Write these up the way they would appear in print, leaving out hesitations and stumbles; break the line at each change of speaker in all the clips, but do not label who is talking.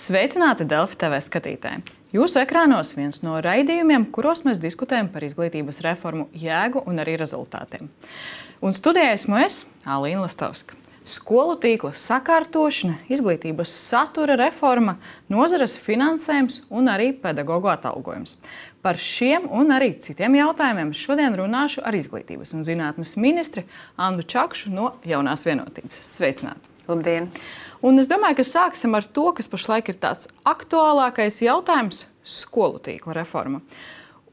Sveicināti Delfi TV skatītāji! Jūsu ekrānos viens no raidījumiem, kuros mēs diskutējam par izglītības reformu jēgu un arī rezultātiem. Un studijā esmu es, Alīna Lastovska. Skolu tīkla sakārtošana, izglītības satura reforma, nozares finansējums un arī pedagoģu atalgojums. Par šiem un arī citiem jautājumiem šodien runāšu ar izglītības un zinātnes ministri Andu Čakšu no Jaunās vienotības. Sveicināti!
Labdien!
Un es domāju, ka sāksim ar to, kas pašlaik ir tāds aktuālākais jautājums - skolu tīkla reforma.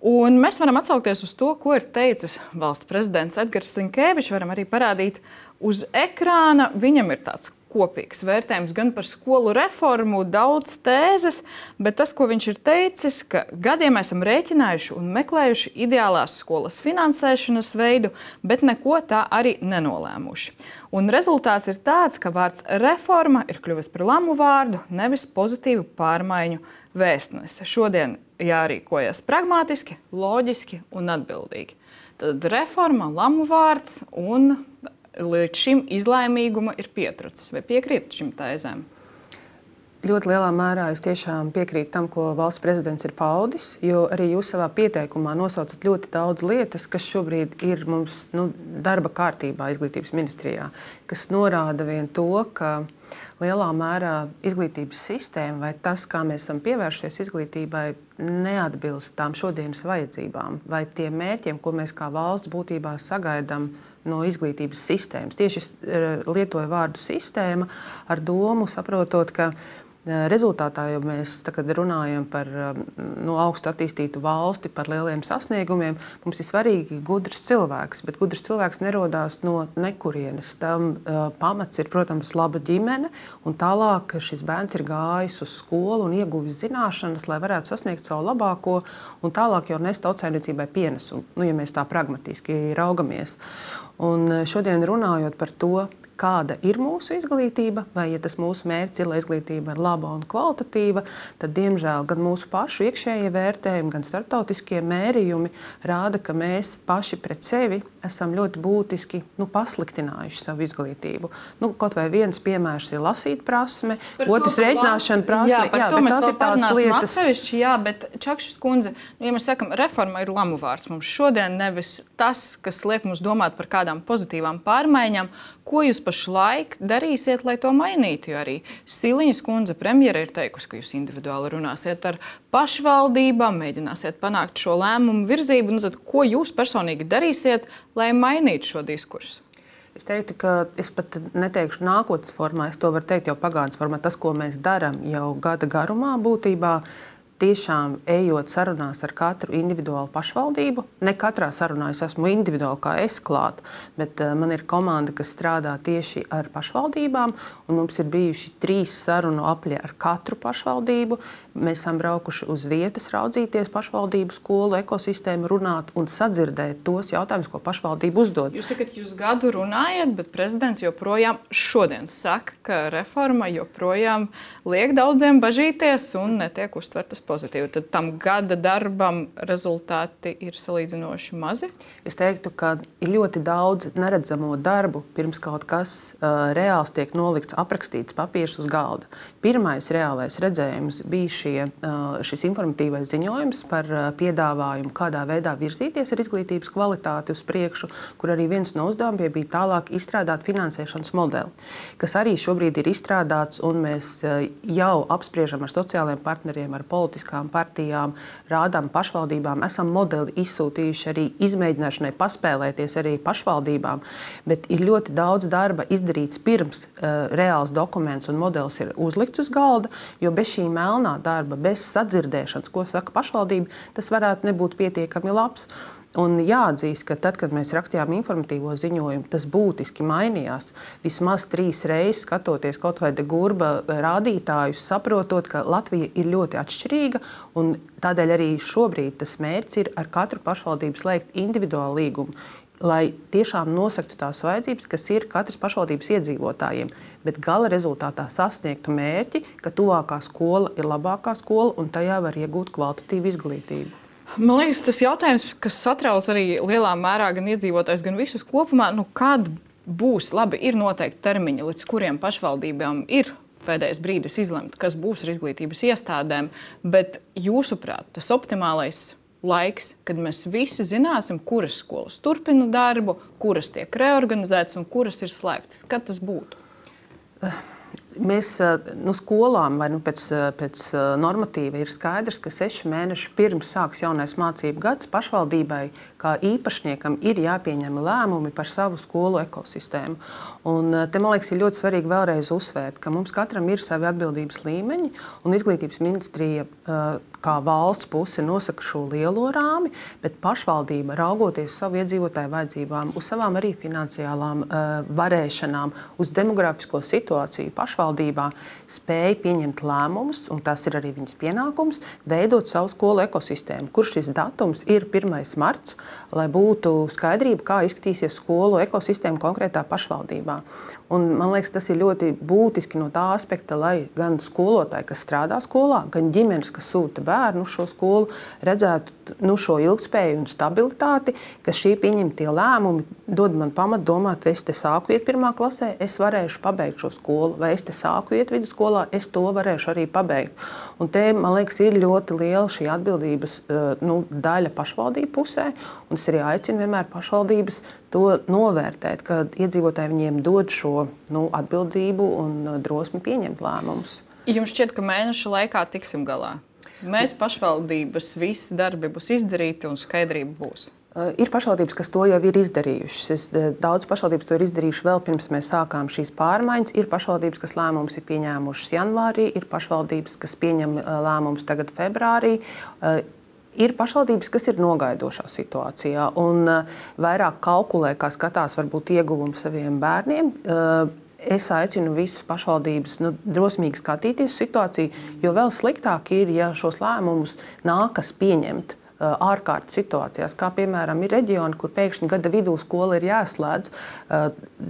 Un mēs varam atsaukties uz to, ko ir teicis valsts prezidents Edgars Rinkēvičs. Varam arī parādīt uz ekrāna. Viņam ir tāds kopīgs vērtējums gan par skolu reformu, daudz tēzes, bet tas, ko viņš ir teicis, ka gadiem esam rēķinājuši un meklējuši ideālās skolas finansēšanas veidu, bet neko tā arī nenolēmuši. Un rezultāts ir tāds, ka vārds reforma ir kļuvis par lamu vārdu, nevis pozitīvu pārmaiņu vēstnese. Šodien jārīkojas pragmatiski, loģiski un atbildīgi. Tad reforma, lamu vārds un līdz šim izlēmīguma ir pietrūcis. Vai piekrīt šim tēzēm?
Ļoti lielā mērā es tiešām piekrītu tam, ko valsts prezidents ir paudis, jo arī jūs savā pieteikumā nosaucat ļoti daudz lietas, kas šobrīd ir mums darba kārtībā izglītības ministrijā, kas norāda vien to, ka lielā mērā izglītības sistēma vai tas, kā mēs esam pievēršies izglītībai, neatbilst tām šodienas vajadzībām vai tiem mērķiem, ko mēs kā valsts būtībā sagaidām no izglītības sistēmas. Tieši lietoju vārdu sistēma ar domu, saprotot, ka rezultātā, ja mēs runājam par augstu attīstītu valsti, par lieliem sasniegumiem, mums ir svarīgi gudrs cilvēks, bet gudrs cilvēks nerodās no nekurienes. Tam pamats ir, protams, laba ģimene, un tālāk šis bērns ir gājis uz skolu un ieguvis zināšanas, lai varētu sasniegt savu labāko, un tālāk jau nest tautsājniecībai pienesumu, ja mēs tā pragmatiski raugamies. Un šodien runājot par to, kāda ir mūsu izglītība, vai ja tas mūsu mērķis ir, lai izglītība ir laba un kvalitatīva, tad, diemžēl, gan mūsu pašu iekšējie vērtējumi, gan starptautiskie mērījumi rāda, ka mēs paši pret sevi esam ļoti būtiski pasliktinājuši savu izglītību. Kaut vai viens piemērs ir lasīt prasme, otrs rēķināšana prasme.
Jā, par to mēs vēl parunāsim atsevišķi, bet Čakšas kundze, ja mēs sakam, reforma ir lamu vārds mums šodien, nevis tas, kas liek mums domāt par kādām pozitīvām pārmaiņām. Ko jūs pašlaik darīsiet, lai to mainītu? Jo arī Siliņas kundze premjera ir teikusi, ka jūs individuāli runāsiet ar pašvaldībām, mēģināsiet panākt šo lēmumu virzību. Tad, ko jūs personīgi darīsiet, lai mainītu šo diskursu?
Es teiktu, ka es pat neteikšu nākotnes formā, es to varu teikt jau pagātnes formā. Tas, ko mēs darām jau gada garumā būtībā, tiešām ejot sarunās ar katru individuālu pašvaldību. Ne katrā sarunā es esmu individuāli kā es klāt, bet man ir komanda, kas strādā tieši ar pašvaldībām, un mums ir bijuši 3 sarunu apļi ar katru pašvaldību. Mēs esam braukuši uz vietas, raudzīties pašvaldību skolu ekosistēmu, runāt un sadzirdēt tos jautājumus, ko pašvaldība uzdod.
Jūs sakat, jūs gadu runājat, bet prezidents joprojām šodien saka, ka reforma joprojām liek daudziem bažīties un netiek uztvertas pozitīvi. Tad tam gada darbam rezultāti ir salīdzinoši mazi?
Es teiktu, ka ir ļoti daudz neredzamo darbu, pirms kaut kas reāls tiek nolikts, aprakstīts papīrs uz galda. Pirmais reālais redzējums bija šis informatīvais ziņojums par piedāvājumu, kādā veidā virzīties ar izglītības kvalitāti uz priekšu, kur arī viens no uzdevumiem bija tālāk izstrādāt finansēšanas modeli, kas arī šobrīd ir izstrādāts, un mēs jau apspriežam ar sociālajiem partneriem, ar politiskām partijām, rādām pašvaldībām, esam modeli izsūtījuši arī izmēģināšanai paspēlēties arī pašvaldībām, bet ir ļoti daudz darba izdarīts pirms reāls dokuments un modelis ir uzlikts uz galda, jo bez šī melnā darba, bez sadzirdēšanas, ko saka pašvaldība, tas varētu nebūt pietiekami labs. Un jāatzīst, ka tad, kad mēs rakstījām informatīvo ziņojumu, tas būtiski mainījās. Vismaz 3 reizes skatoties kaut vai de Gurba rādītājus, saprotot, ka Latvija ir ļoti atšķirīga, un tādēļ arī šobrīd tas mērķis ir ar katru pašvaldību slēgt individuālu līgumu, lai tiešām nosaktu tās vajadzības, kas ir katras pašvaldības iedzīvotājiem, bet gala rezultātā sasniegtu mērķi, ka tuvākā skola ir labākā skola un tajā var iegūt kvalitatīvu izglītību.
Man liekas, tas jautājums, kas satrauc arī lielā mērā gan iedzīvotājs, gan visus kopumā, kad būs labi, ir noteikti termiņi, līdz kuriem pašvaldībām ir pēdējais brīdis izlemt, kas būs ar izglītības iestādēm, bet jūsuprāt, tas optimālais laiks, kad mēs visi zināsim, kuras skolas turpina darbu, kuras tiek reorganizētas un kuras ir slēgtas. Kad tas būtu?
Mēs skolām vai pēc normatīva ir skaidrs, ka 6 mēneši pirms sāks jaunais mācību gads pašvaldībai kā īpašniekam ir jāpieņem lēmumi par savu skolu ekosistēmu. Un te, man liekas, ir ļoti svarīgi vēlreiz uzsvērt, ka mums katram ir savi atbildības līmeņi, un Izglītības ministrija kā valsts puse nosaka šo lielo rāmi, bet pašvaldība, raugoties savu iedzīvotāju vajadzībām, uz savām arī finansiālām varēšanām, uz demografisko situāciju pašvaldībā, spēja pieņemt lēmumus, un tas ir arī viņas pienākums, veidot savu skolu ekosistēmu, kur šis datums ir 1. marts, lai būtu skaidrība, kā izskatīsies skolu ekosistēma konkrētā pašvaldībā. Un, man liekas, tas ir ļoti būtiski no tā aspekta, lai gan skolotāji, kas strādā skolā, gan ģimenes, kas sūta bērnu uz šo skolu, redzētu šo ilgspēju un stabilitāti, ka šī pieņemtie lēmumi dod man pamatu domāt, es te sāku iet 1. klasē, es varēšu pabeigt šo skolu, vai es te sāku iet vidusskolā, es to varēšu arī pabeigt. Un te, man liekas, ir ļoti liela šī atbildības daļa pašvaldību pusē, un es arī aicinu vienmēr pašvaldības to novērtēt, kad iedzīvotāji viņiem dod šo atbildību un drosmi pieņemt lēmumus.
Jums šķiet, ka mēneša laikā tiksim galā? Mēs pašvaldības visi darbi būs izdarīti un skaidrība būs?
Ir pašvaldības, kas to jau ir izdarījušas. Daudz pašvaldības to ir izdarījuši vēl pirms mēs sākām šīs pārmaiņas. Ir pašvaldības, kas lēmumus ir pieņēmušas janvārī, ir pašvaldības, kas pieņem lēmumus tagad februārī. Ir pašvaldības, kas ir nogaidošā situācijā un vairāk kalkulē, kā skatās varbūt ieguvumu saviem bērniem. Es aicinu visas pašvaldības drosmīgi skatīties situāciju, jo vēl sliktāk ir, ja šos lēmumus nākas pieņemt ārkārtas situācijās, kā piemēram ir reģioni, kur pēkšņi gada vidū skola ir jāslēdz,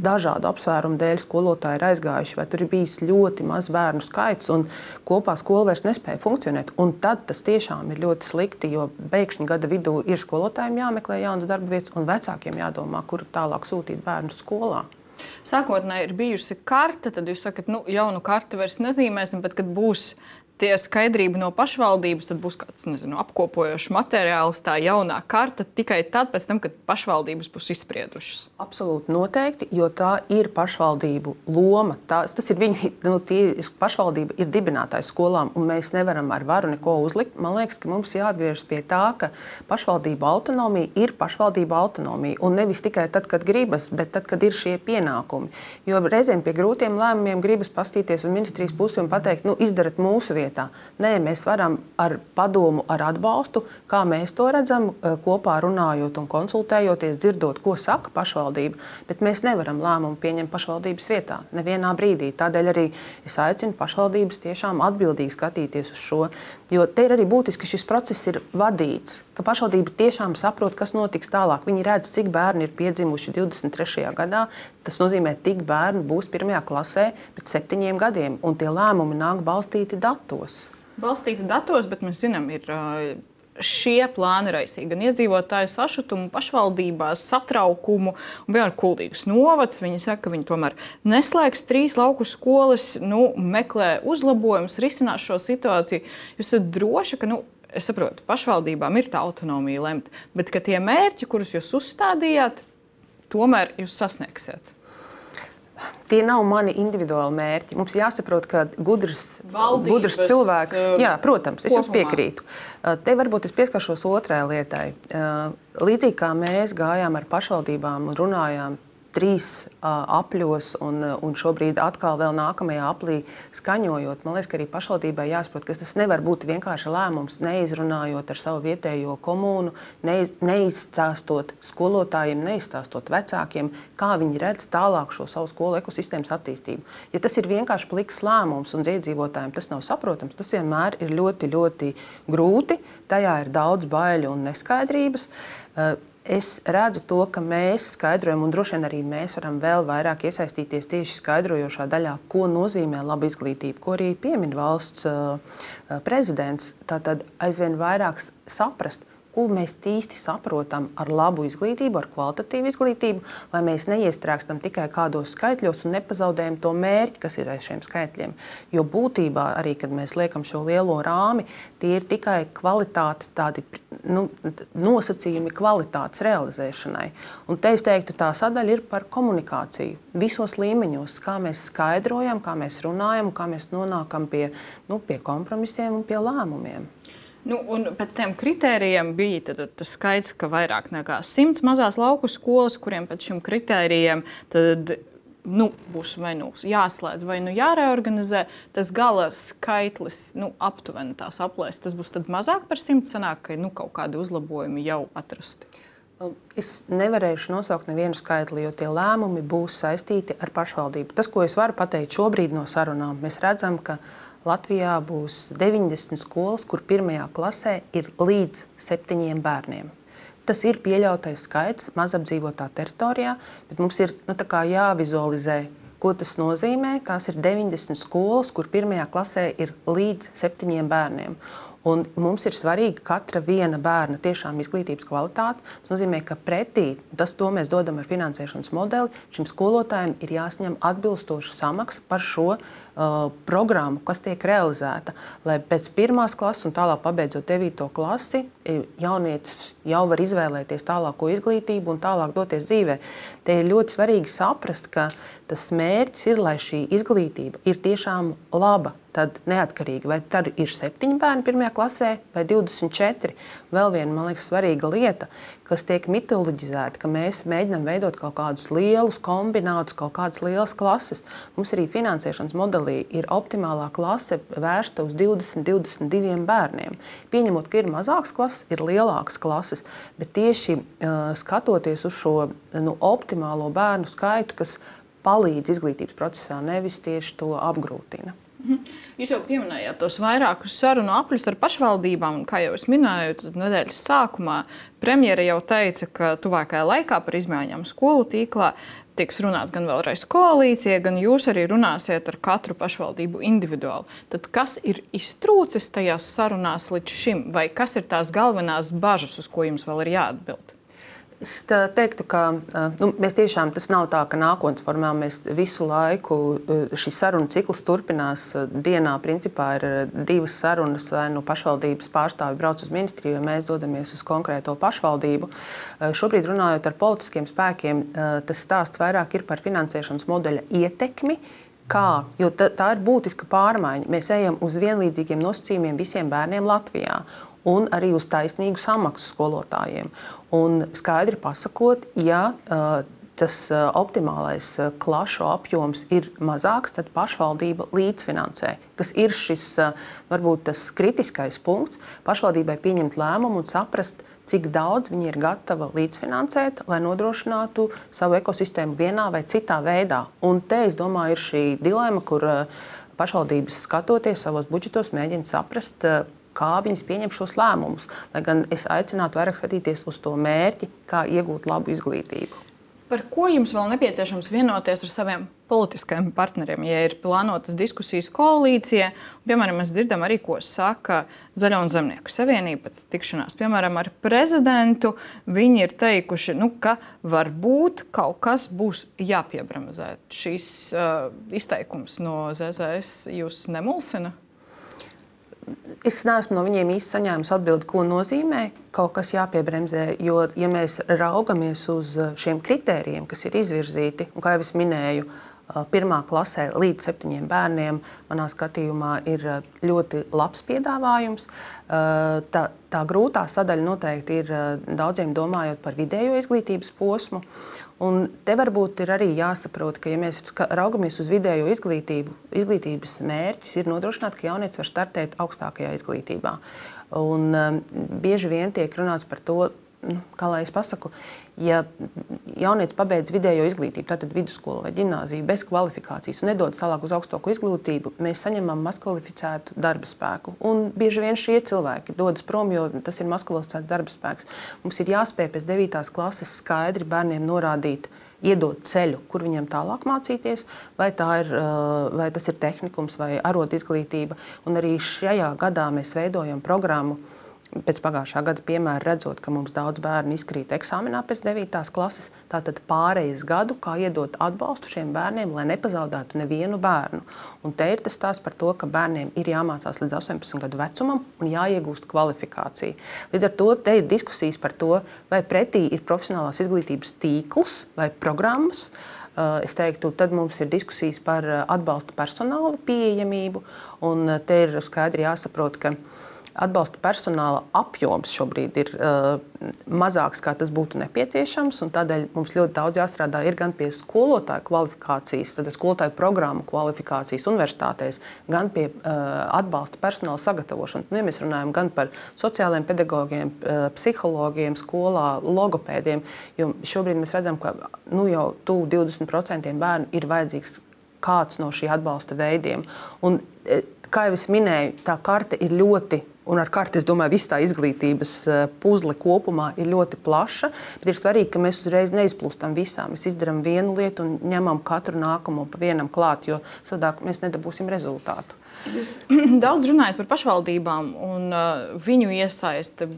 dažādu apsvērumu dēļ skolotāji ir aizgājuši, vai tur ir bijis ļoti maz bērnu skaits un kopā skola vairs nespēja funkcionēt. Un tad tas tiešām ir ļoti slikti, jo pēkšņi gada vidū ir skolotājiem jāmeklē jaunas darba vietas un vecākiem jādomā, kur tālāk sūtīt bērnus skolā.
Sākotnēji ir bijusi karte, tad jūs sakat, jaunu karti vairs nezīmēsim, bet kad būs tie skaidrība no pašvaldības, tad būs kāds, apkopojošs materiāls, tā jaunā karta tikai tad, pēc tam, kad pašvaldības būs izspriedušas.
Absolūti noteikti, jo tā ir pašvaldību loma. Tas ir viņu, pašvaldība ir dibinātājs skolām, un mēs nevaram ar varu neko uzlikt. Man liekas, ka mums jāatgriežas pie tā, ka pašvaldība autonomija ir pašvaldība autonomija, un nevis tikai tad, kad gribas, bet tad, kad ir šie pienākumi. Jo reizēm pie grūtiem lēmumiem gribas pastīties uz ministrijas pusi un pateikt, izdarat mūsu vietā. Nē, mēs varam ar padomu, ar atbalstu, kā mēs to redzam, kopā runājot un konsultējoties, dzirdot, ko saka pašvaldība, bet mēs nevaram lēmumu pieņemt pašvaldības vietā nevienā brīdī. Tādēļ arī es aicinu pašvaldības tiešām atbildīgi skatīties uz šo, jo te ir arī būtiski, ka šis process ir vadīts, ka pašvaldība tiešām saprot, kas notiks tālāk. Viņi redz, cik bērni ir piedzimuši 23. gadā. Tas nozīmē, cik bērni būs 1. klasē pēc 7 gadiem, un tie lēmumi nāk balstīti datos.
Balstīti datos, bet mēs zinām, ir šie plāni raisīja gan iedzīvotāju sašutumu pašvaldībās, satraukumu, un piemēram Kuldīgas novads. Viņi saka, ka viņi tomēr neslēgs 3 lauku skolas, meklē uzlabojumus, risinās šo situāciju. Jūs esat droši, ka, es saprotu, pašvaldībām ir tā autonomija lemt, bet ka tie mērķi, kurus jūs uzstādījāt, tomēr jūs sasniegsiet?
Tie nav mani individuāli mērķi. Mums jāsaprot, ka gudrs cilvēks, jā, protams, es jums piekrītu. Te varbūt es pieskaršos otrai lietai. Līdzīgi kā mēs gājām ar pašvaldībām un runājām 3 apļos un šobrīd atkal vēl nākamajā aplī skaņojot, man liekas, ka arī pašvaldībai jāsaprot, ka tas nevar būt vienkārši lēmums, neizrunājot ar savu vietējo komūnu, neizstāstot skolotājiem, neizstāstot vecākiem, kā viņi redz tālāk šo savu skolu ekosistēmas attīstību. Ja tas ir vienkārši pliks lēmums un iedzīvotājiem tas nav saprotams, tas vienmēr ir ļoti, ļoti grūti, tajā ir daudz baiļu un neskaidrības. Es redzu to, ka mēs skaidrojam, un droši vien arī mēs varam vēl vairāk iesaistīties tieši skaidrojošā daļā, ko nozīmē laba izglītība, ko arī piemin valsts prezidents. Tātad aizvien vairāk saprast, ko mēs īsti saprotam ar labu izglītību, ar kvalitatīvu izglītību, lai mēs neiestrēgstam tikai kādos skaitļos un nepazaudējam to mērķi, kas ir aiz šiem skaitļiem. Jo būtībā arī, kad mēs liekam šo lielo rāmi, tie ir tikai kvalitāte, tādi nosacījumi kvalitātes realizēšanai. Un te es teiktu, tā sadaļa ir par komunikāciju visos līmeņos, kā mēs skaidrojam, kā mēs runājam, kā mēs nonākam pie kompromisiem un pie lēmumiem.
Un pēc tiem kritērijiem bija tas skaits, ka vairāk nekā 100 mazās lauku skolas, kuriem pēc šiem kritērijiem būs vai jāslēdz vai jāreorganizē. Tas gala skaitlis aptuveni tās aplēs. Tas būs mazāk par 100, sanāk, ka kaut kādi uzlabojumi jau atrasti.
Es nevarēšu nosaukt nevienu skaitli, jo tie lēmumi būs saistīti ar pašvaldību. Tas, ko es varu pateikt šobrīd no sarunām, mēs redzam, ka Latvijā būs 90 skolas, kur pirmajā klasē ir līdz 7 bērniem. Tas ir pieļautais skaits mazapdzīvotā teritorijā, bet mums ir jāvizualizē, ko tas nozīmē. Tās ir 90 skolas, kur pirmajā klasē ir līdz 7 bērniem. Un mums ir svarīga katra viena bērna tiešām izglītības kvalitāte. Tas nozīmē, ka pretī to mēs dodam ar finansēšanas modeli. Šim skolotājiem ir jāsaņem atbilstoša samaksa par šo programmu, kas tiek realizēta. Lai pēc 1. klases un tālāk pabeidzot 9. klasi, jaunietis jau var izvēlēties tālāko izglītību un tālāk doties dzīvē. Te ir ļoti svarīgi saprast, ka tas mērķis ir, lai šī izglītība ir tiešām laba. Tad neatkarīgi, vai tad ir 7 bērni 1. klasē vai 24. Vēl viena, man liekas, svarīga lieta, kas tiek mitoloģizēta, ka mēs mēģinām veidot kaut kādus lielus kombinātus, kaut kādas lielas klases. Mums arī finansēšanas modelī ir optimālā klase vērsta uz 20-22 bērniem. Pieņemot, ka ir mazākas klases, ir lielākas klases, bet tieši skatoties uz šo optimālo bērnu skaitu, kas palīdz izglītības procesā, nevis tieši to apgrūtina.
Jūs jau pieminējāt tos vairākus sarunu apļus ar pašvaldībām, un, kā jau es minēju, tad nedēļas sākumā premjere jau teica, ka tuvākajā laikā par izmaiņām skolu tīklā tiks runāts gan vēlreiz koalīcija, gan jūs arī runāsiet ar katru pašvaldību individuāli. Tad kas ir iztrūcis tajās sarunās līdz šim, vai kas ir tās galvenās bažas, uz ko jums vēl ir jāatbild?
Es teiktu, ka mēs tiešām, tas nav tā, ka nākotnes formā mēs visu laiku šis sarunu cikls turpinās. Dienā principā ir 2 sarunas, vai pašvaldības pārstāvi brauc uz ministriju, vai mēs dodamies uz konkrēto pašvaldību. Šobrīd runājot ar politiskiem spēkiem, tas stāsts vairāk ir par finansēšanas modeļa ietekmi. Jo tā ir būtiska pārmaiņa. Mēs ejam uz vienlīdzīgiem nosacījumiem visiem bērniem Latvijā. Un arī uz taisnīgu samaksu skolotājiem. Un skaidri pasakot, ja tas optimālais klašu apjoms ir mazāks, tad pašvaldība līdzfinansē, kas ir šis varbūt tas kritiskais punkts. Pašvaldībai pieņemt lēmumu un saprast, cik daudz viņi ir gatava līdzfinansēt, lai nodrošinātu savu ekosistēmu vienā vai citā veidā. Un te, es domāju, ir šī dilema, kur pašvaldības skatoties savos budžetos mēģina saprast, kā viņas pieņem šos lēmumus. Lai gan es aicinātu vairāk skatīties uz to mērķi, kā iegūt labu izglītību.
Par ko jums vēl nepieciešams vienoties ar saviem politiskajiem partneriem, ja ir plānotas diskusijas koalīcijā? Piemēram, mēs dzirdam arī, ko saka Zaļo un Zemnieku savienība pēc tikšanās. Piemēram, ar prezidentu viņi ir teikuši, ka varbūt kaut kas būs jāpiebremzē. Šīs izteikums no ZZS jūs nemulsina?
Es neesmu no viņiem īsti saņēmis atbildi, ko nozīmē kaut kas jāpiebremzē, jo, ja mēs raugamies uz šiem kritērijiem, kas ir izvirzīti, un, kā jau es minēju, 1. klasē līdz 7 bērniem, manā skatījumā, ir ļoti labs piedāvājums. Tā grūtā sadaļa noteikti ir daudziem domājot par vidējo izglītības posmu. Un te varbūt ir arī jāsaprot, ka, ja mēs raugamies uz vidējo izglītību, izglītības mērķis ir nodrošināt, ka jaunietis var startēt augstākajā izglītībā. Un bieži vien tiek runāts par to, kā lai es pasaku, ja jaunietis pabeidz vidējo izglītību, tātad vidusskolu vai ģimnāziju bez kvalifikācijas un nedodas tālāk uz augstāko izglītību, mēs saņemam mazkvalificētu darba spēku. Un bieži vien šie cilvēki dodas prom, jo tas ir mazkvalificēts darba spēks. Mums ir jāspēj pēc 9. klases skaidri bērniem norādīt, iedot ceļu, kur viņiem tālāk mācīties, vai tas ir tehnikums vai arotizglītība. Un arī šajā gadā mēs veidojam programmu pēc pagājušā gada piemēra redzot, ka mums daudz bērnu izkrīt eksāmenā pēc 9. klases, tātad pārejas gadu, kā iedot atbalstu šiem bērniem, lai nepazaudētu nevienu bērnu. Un te ir tas stāsts par to, ka bērniem ir jāmācās līdz 18 gadu vecumam un jāiegūst kvalifikācija. Līdz ar to te ir diskusijas par to, vai pretī ir profesionālās izglītības tīkls vai programmas. Es teiktu, tad mums ir diskusijas par atbalstu personāla pieejamību, un te ir skaidri jāsaprot, ka atbalsta personāla apjoms šobrīd ir mazāks, kā tas būtu nepieciešams, un tādēļ mums ļoti daudz jāstrādā ir gan pie skolotāju kvalifikācijas, tad skolotāju programmu kvalifikācijas universitātēs, gan pie atbalsta personāla sagatavošanas. Ja mēs runājam gan par sociālajiem pedagogiem, psihologiem, skolā, logopēdiem, jo šobrīd mēs redzam, ka jau 20% bērnu ir vajadzīgs kāds no šī atbalsta veidiem. Un, kā jau es minēju, tā karte ir ļoti, un ar karti, es domāju, viss tā izglītības puzle kopumā ir ļoti plaša, bet ir svarīgi, ka mēs uzreiz neizplūstam visā. Mēs izdarām vienu lietu un ņemam katru nākamo pa vienam klāt, jo savādāk mēs nedabūsim rezultātu.
Jūs daudz runājat par pašvaldībām un viņu iesaisti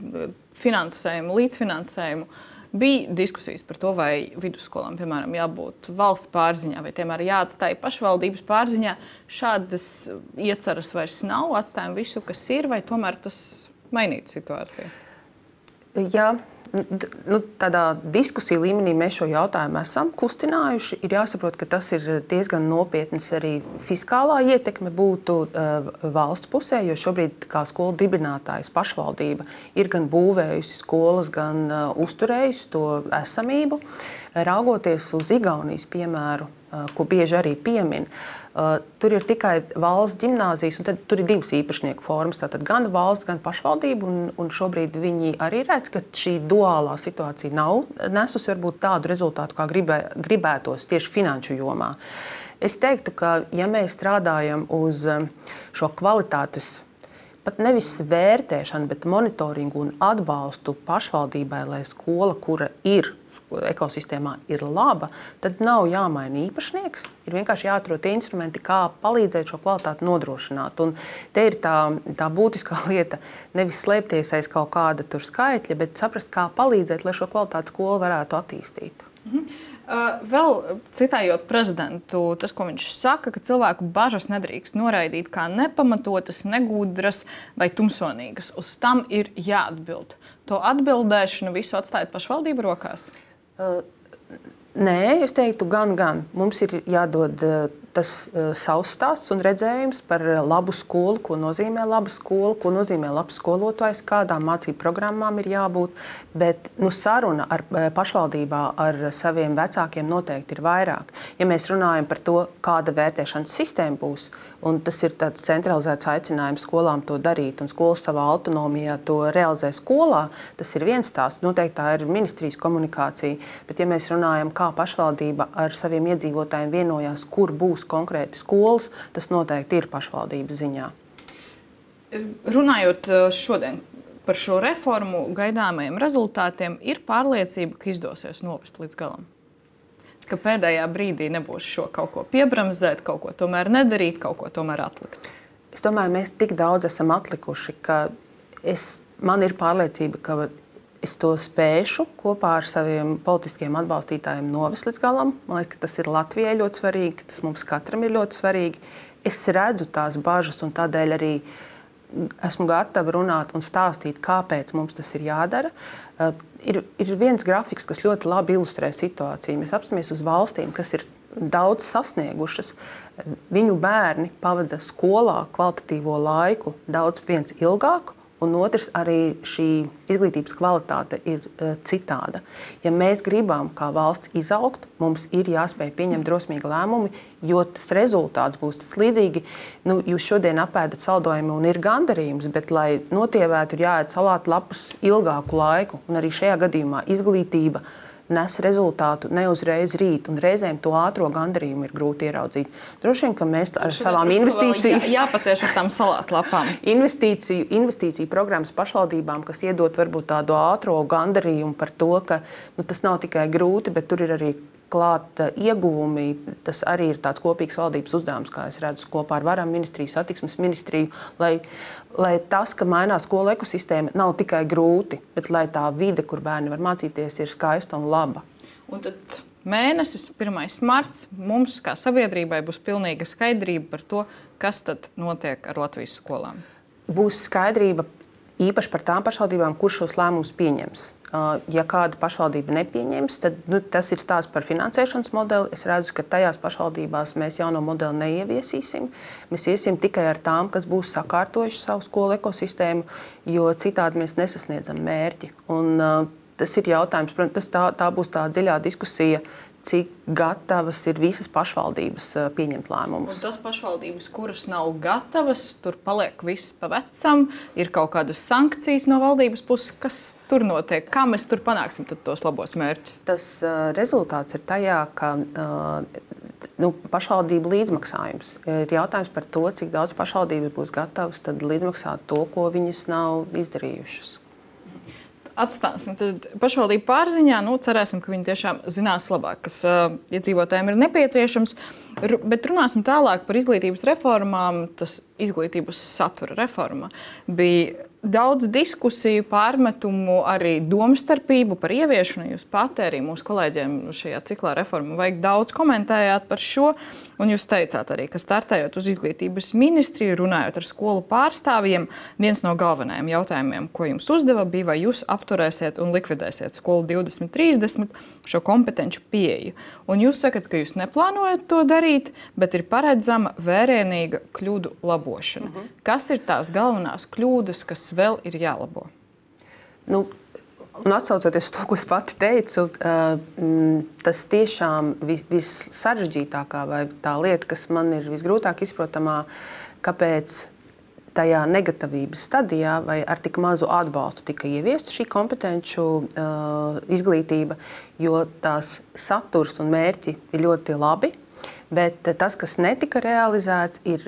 finansējumu, līdzfinansējumu. Bija diskusijas par to, vai vidusskolām, piemēram, jābūt valsts pārziņā, vai tomēr jāatstāj pašvaldības pārziņā. Šādas ieceras vairs nav, atstājam visu, kas ir, vai tomēr tas mainītu situāciju?
Jā. Tādā diskusiju līmenī mēs šo jautājumu esam kustinājuši. Ir jāsaprot, ka tas ir diezgan nopietns arī fiskālā ietekme būtu valsts pusē, jo šobrīd kā skolu dibinātājs pašvaldība ir gan būvējusi skolas, gan uzturējusi to esamību. Raugoties uz Igaunijas piemēru, ko bieži arī piemin, tur ir tikai valsts ģimnāzijas, un tad tur ir divas īpašnieku formas, tātad gan valsts, gan pašvaldība, un šobrīd viņi arī redz, ka šī duālā situācija nav nesusi varbūt tādu rezultātu, kā gribētos tieši finanšu jomā. Es teiktu, ka ja mēs strādājam uz šo kvalitātes, pat nevis vērtēšanu, bet monitoringu un atbalstu pašvaldībai, lai skola, kura ir ekosistēmā ir laba, tad nav jāmaina īpašnieks. Ir vienkārši jāatrod tie instrumenti, kā palīdzēt šo kvalitāti nodrošināt. Un te ir tā būtiskā lieta nevis slēpties aiz kaut kāda tur skaitļa, bet saprast, kā palīdzēt, lai šo kvalitāti skola varētu attīstīt.
Vēl citējot prezidentu, tas, ko viņš saka, ka cilvēku bažas nedrīkst noraidīt kā nepamatotas, negudras vai tumsonīgas. Uz tam ir jāatbild. To atbildēšanu visu atstājot pašvaldību rokās?
Nē, es teiktu gan. Mums ir jādod tas savs stāsts un redzējums par labu skolu, ko nozīmē laba skola, ko nozīmē labs skolotājs, kādām mācību programmām ir jābūt. Bet saruna ar pašvaldībā ar saviem vecākiem noteikti ir vairāk. Ja mēs runājam par to, kāda vērtēšanas sistēma būs, un tas ir tāds centralizēts aicinājums skolām to darīt, un skolas savā autonomijā to realizē skolā, tas ir viens stāsts. Noteikti tā ir ministrijas komunikācija. Bet ja mēs runājam, kā pašvaldība ar saviem iedzīvotājiem vienojās, kur būs konkrēti skolas, tas noteikti ir pašvaldības ziņā.
Runājot šodien par šo reformu gaidāmajiem rezultātiem, ir pārliecība, ka izdosies novest līdz galam? Ka pēdējā brīdī nebūs šo kaut ko piebremzēt, kaut ko tomēr nedarīt, kaut ko tomēr atlikt?
Es domāju, mēs tik daudz esam atlikuši, ka man ir pārliecība, ka es to spēšu kopā ar saviem politiskiem atbalstītājiem novest līdz galam. Man liekas, ka tas ir Latvijai ļoti svarīgi, tas mums katram ir ļoti svarīgi. Es redzu tās bažas un tādēļ arī esmu gatava runāt un stāstīt, kāpēc mums tas ir jādara. Ir viens grafiks, kas ļoti labi ilustrē situāciju. Mēs apskatāmies uz valstīm, kas ir daudz sasniegušas. Viņu bērni pavada skolā kvalitatīvo laiku daudz viens ilgāku. Un otrs, arī šī izglītības kvalitāte ir citāda. Ja mēs gribam kā valsts izaugt, mums ir jāspēj pieņemt drosmīgi lēmumi, jo tas rezultāts būs tas līdzīgi. Jūs šodien apēdat saldojumu un ir gandarījums, bet, lai notievētu, ir jāēd salātu lapus ilgāku laiku. Un arī šajā gadījumā izglītība nes rezultātu ne uzreiz rīt, un reizēm to ātro gandarījumu ir grūti ieraudzīt. Droši vien, ka mēs ar savām investīcijām...
Jāpacieš ar tām salātlapām.
Investīciju programmas pašvaldībām, kas iedot varbūt tādu ātro gandarījumu par to, ka tas nav tikai grūti, bet tur ir arī klāt ieguvumi. Tas arī ir tāds kopīgs valdības uzdevums, kā es redzu, kopā ar Varam ministriju, satiksmes ministriju, lai tas, ka mainās skolu ekosistēma, nav tikai grūti, bet lai tā vide, kur bērni var mācīties, ir skaista un laba.
Un tad mēnesis, 1. marts, mums kā sabiedrībai būs pilnīga skaidrība par to, kas tad notiek ar Latvijas skolām.
Būs skaidrība īpaši par tām pašvaldībām, kurš šos lēmumus pieņems. Ja kāda pašvaldība nepieņems, tad tas ir stāsts par finansēšanas modeli. Es redzu, ka tajās pašvaldībās mēs jauno modeli neieviesīsim. Mēs iesim tikai ar tām, kas būs sakārtojuši savu skolu ekosistēmu, jo citādi mēs nesasniedzam mērķi. Un, tas ir jautājums, protams, tā būs tā dziļā diskusija, cik gatavas ir visas pašvaldības pieņemt lēmumus.
Un tas pašvaldības, kuras nav gatavas, tur paliek viss pa vecam, ir kaut kādas sankcijas no valdības puses, kas tur notiek, kā mēs tur panāksim tos labos mērķus?
Tas rezultāts ir tajā, ka pašvaldību līdzmaksājums ir jautājums par to, cik daudz pašvaldības būs gatavas tad līdzmaksāt to, ko viņas nav izdarījušas.
Atstāsim pašvaldību pārziņā. Cerēsim, ka viņi tiešām zinās labāk, kas iedzīvotājiem ir nepieciešams. Bet runāsim tālāk par izglītības reformām. Tas izglītības satura reforma bija daudz diskusiju, pārmetumu, arī domstarpību par ieviešanu. Jūs pati arī mūsu kolēģiem šajā ciklā reformu vajag daudz komentējāt par šo. Un jūs teicāt arī, ka startējot uz izglītības ministriju, runājot ar skolu pārstāvjiem, viens no galvenajiem jautājumiem, ko jums uzdeva, bija, vai jūs apturēsiet un likvidēsiet skolu 2030 šo kompetenci pieeju. Un jūs sakat, ka jūs neplānojat to darīt, bet ir paredzama vērienīga kļūdu labošana. Kas ir tās galvenās kļūdas, kas vēl ir jālabo?
Un atsaucoties to, ko es pati teicu, tas tiešām vissarežģītākā vai tā lieta, kas man ir visgrūtāk izprotamā, kāpēc tajā negatavības stadijā vai ar tik mazu atbalstu tika ieviesta šī kompetenču izglītība, jo tās saturs un mērķi ir ļoti labi, bet tas, kas netika realizēts, ir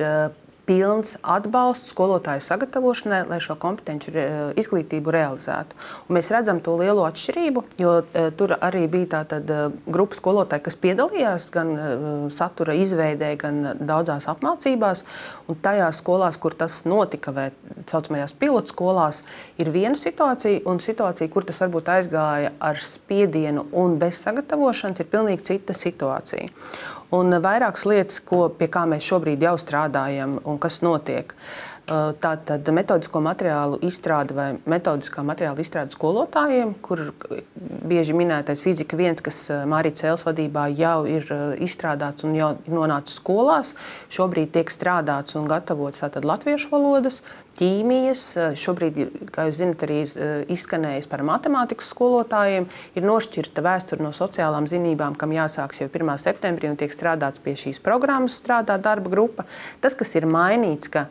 pilns atbalsts skolotāju sagatavošanai, lai šo kompetenci izglītību realizētu. Un mēs redzam to lielo atšķirību, jo tur arī bija tāda grupa skolotāju, kas piedalījās gan satura izveidē, gan daudzās apmācībās. Un tajās skolās, kur tas notika, vai saucamajās pilotu skolās, ir viena situācija, un situācija, kur tas varbūt aizgāja ar spiedienu un bez sagatavošanas, ir pilnīgi cita situācija. Un vairākas lietas, pie kā mēs šobrīd jau strādājam un kas notiek. Tātad metodisko materiālu izstrāde vai metodiskā materiāla izstrāde skolotājiem, kur bieži minētais fizika 1, kas Mārītas Cēles vadībā jau ir izstrādāts un jau nonācis skolās. Šobrīd tiek strādāts un gatavots tātad latviešu valodas, ķīmijas. Šobrīd, kā jūs zinat, arī izskanējis par matemātikas skolotājiem. Ir nošķirta vēsture no sociālām zinībām, kam jāsāks jau 1. septembrī un tiek strādāts pie šīs programmas, strādā darba grupa. Tas, kas ir mainīts, ka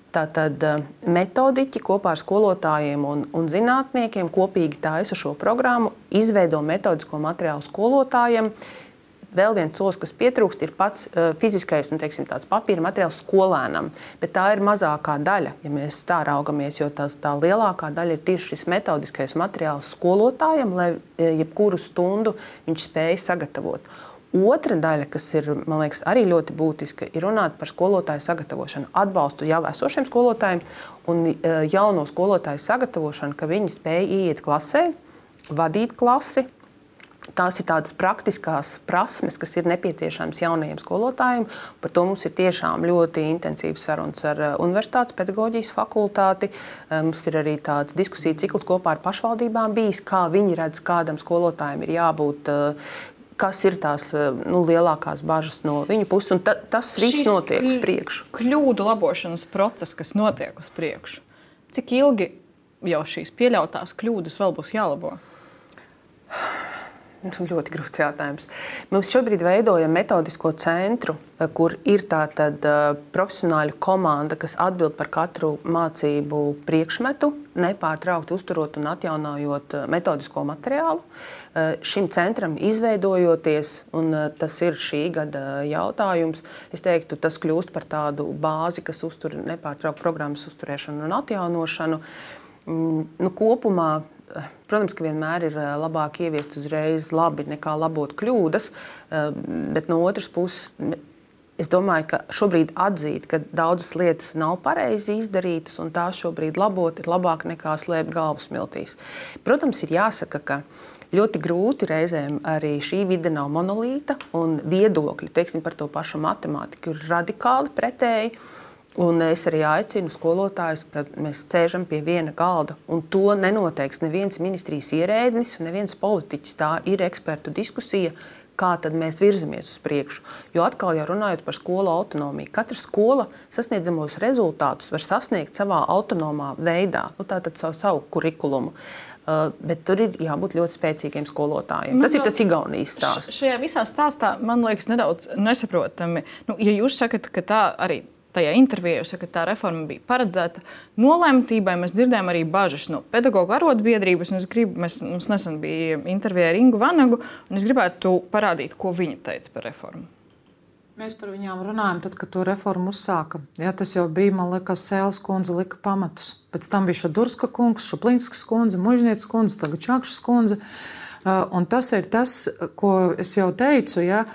tātad metodiķi kopā ar skolotājiem un zinātniekiem kopīgi taisa šo programmu, izveido metodisko materiālu skolotājiem. Vēl viens solis, kas pietrūkst, ir pats fiziskais, tāds papīra materiāls skolēnam. Bet tā ir mazākā daļa, ja mēs tā raugamies, jo tā lielākā daļa ir tieši šis metodiskais materiāls skolotājiem, lai jebkuru stundu viņš spēj sagatavot. Otra daļa, kas ir, man liekas, arī ļoti būtiska, ir runāt par skolotāju sagatavošanu, atbalstu jau esošiem skolotājiem un jauno skolotāju sagatavošanu, ka viņi spēj ieiet klasē, vadīt klasi. Tās ir tādas praktiskās prasmes, kas ir nepieciešamas jaunajiem skolotājiem. Par to mums ir tiešām ļoti intensīvs sarunas ar Universitātes pedagoģijas fakultāti. Mums ir arī tāds diskusiju cikls kopā ar pašvaldībām bijis, kā viņi redz, kādam skolotājiem ir jābūt, kas ir tās lielākās bažas no viņu puses. Un tas viss notiek uz priekšu.
Kļūdu labošanas process, kas notiek uz priekšu. Cik ilgi jau šīs pieļautās kļūdas vēl būs jālabo?
Ļoti grūts jautājums. Mums šobrīd veidojam metodisko centru, kur ir tātad profesionāļu komanda, kas atbild par katru mācību priekšmetu, nepārtraukti uzturot un atjaunojot metodisko materiālu. Šim centram izveidojoties, un tas ir šī gada jautājums, es teiktu, tas kļūst par tādu bāzi, kas uztur nepārtraukti programmas uzturēšanu un atjaunošanu. Kopumā protams, ka vienmēr ir labāk ieviest uzreiz labi nekā labot kļūdas, bet no otras puses es domāju, ka šobrīd atzīt, ka daudzas lietas nav pareizi izdarītas un tās šobrīd labot ir labāk nekā slēpt galvu smiltīs. Protams, ir jāsaka, ka ļoti grūti reizēm arī šī vide nav monolīta un viedokļi, teiksim, par to pašu matemātiku ir radikāli pretēji. Un es arī aicinu skolotājus, ka mēs sēžam pie viena galda, un to nenoteiks neviens ministrijas ierēdnis, neviens politiķis. Tā ir ekspertu diskusija, kā tad mēs virzamies uz priekšu. Jo atkal jau runājot par skolu autonomiju, katra skola sasniedzamos rezultātus var sasniegt savā autonomā veidā, tātad savu kurikulumu. Bet tur ir jābūt ļoti spēcīgiem skolotājiem. Tas ir tas Igaunijas stāsts.
Šajā visā stāstā man liekas nedaudz nesaprotami. Ja jūs sakat, ka tā arī tajā intervijā jūs sakat, ka tā reforma bija paredzēta nolemtībai, mēs dzirdējām arī bažas no pedagoģu arotbiedrības. Mums nesen bija intervija ar Ingu Vanagu, un es gribētu parādīt, ko viņa teica par reformu.
Mēs par viņām runājam, tad, kad to reformu uzsāka. Jā, tas jau bija, man liekas, Sēles kundze lika pamatus. Pēc tam bija Šadurska kungs, Šuplinskas kundze, Mužnieces kundze, tagad Čakšas kundze. Un tas ir tas, ko es jau teicu, ja,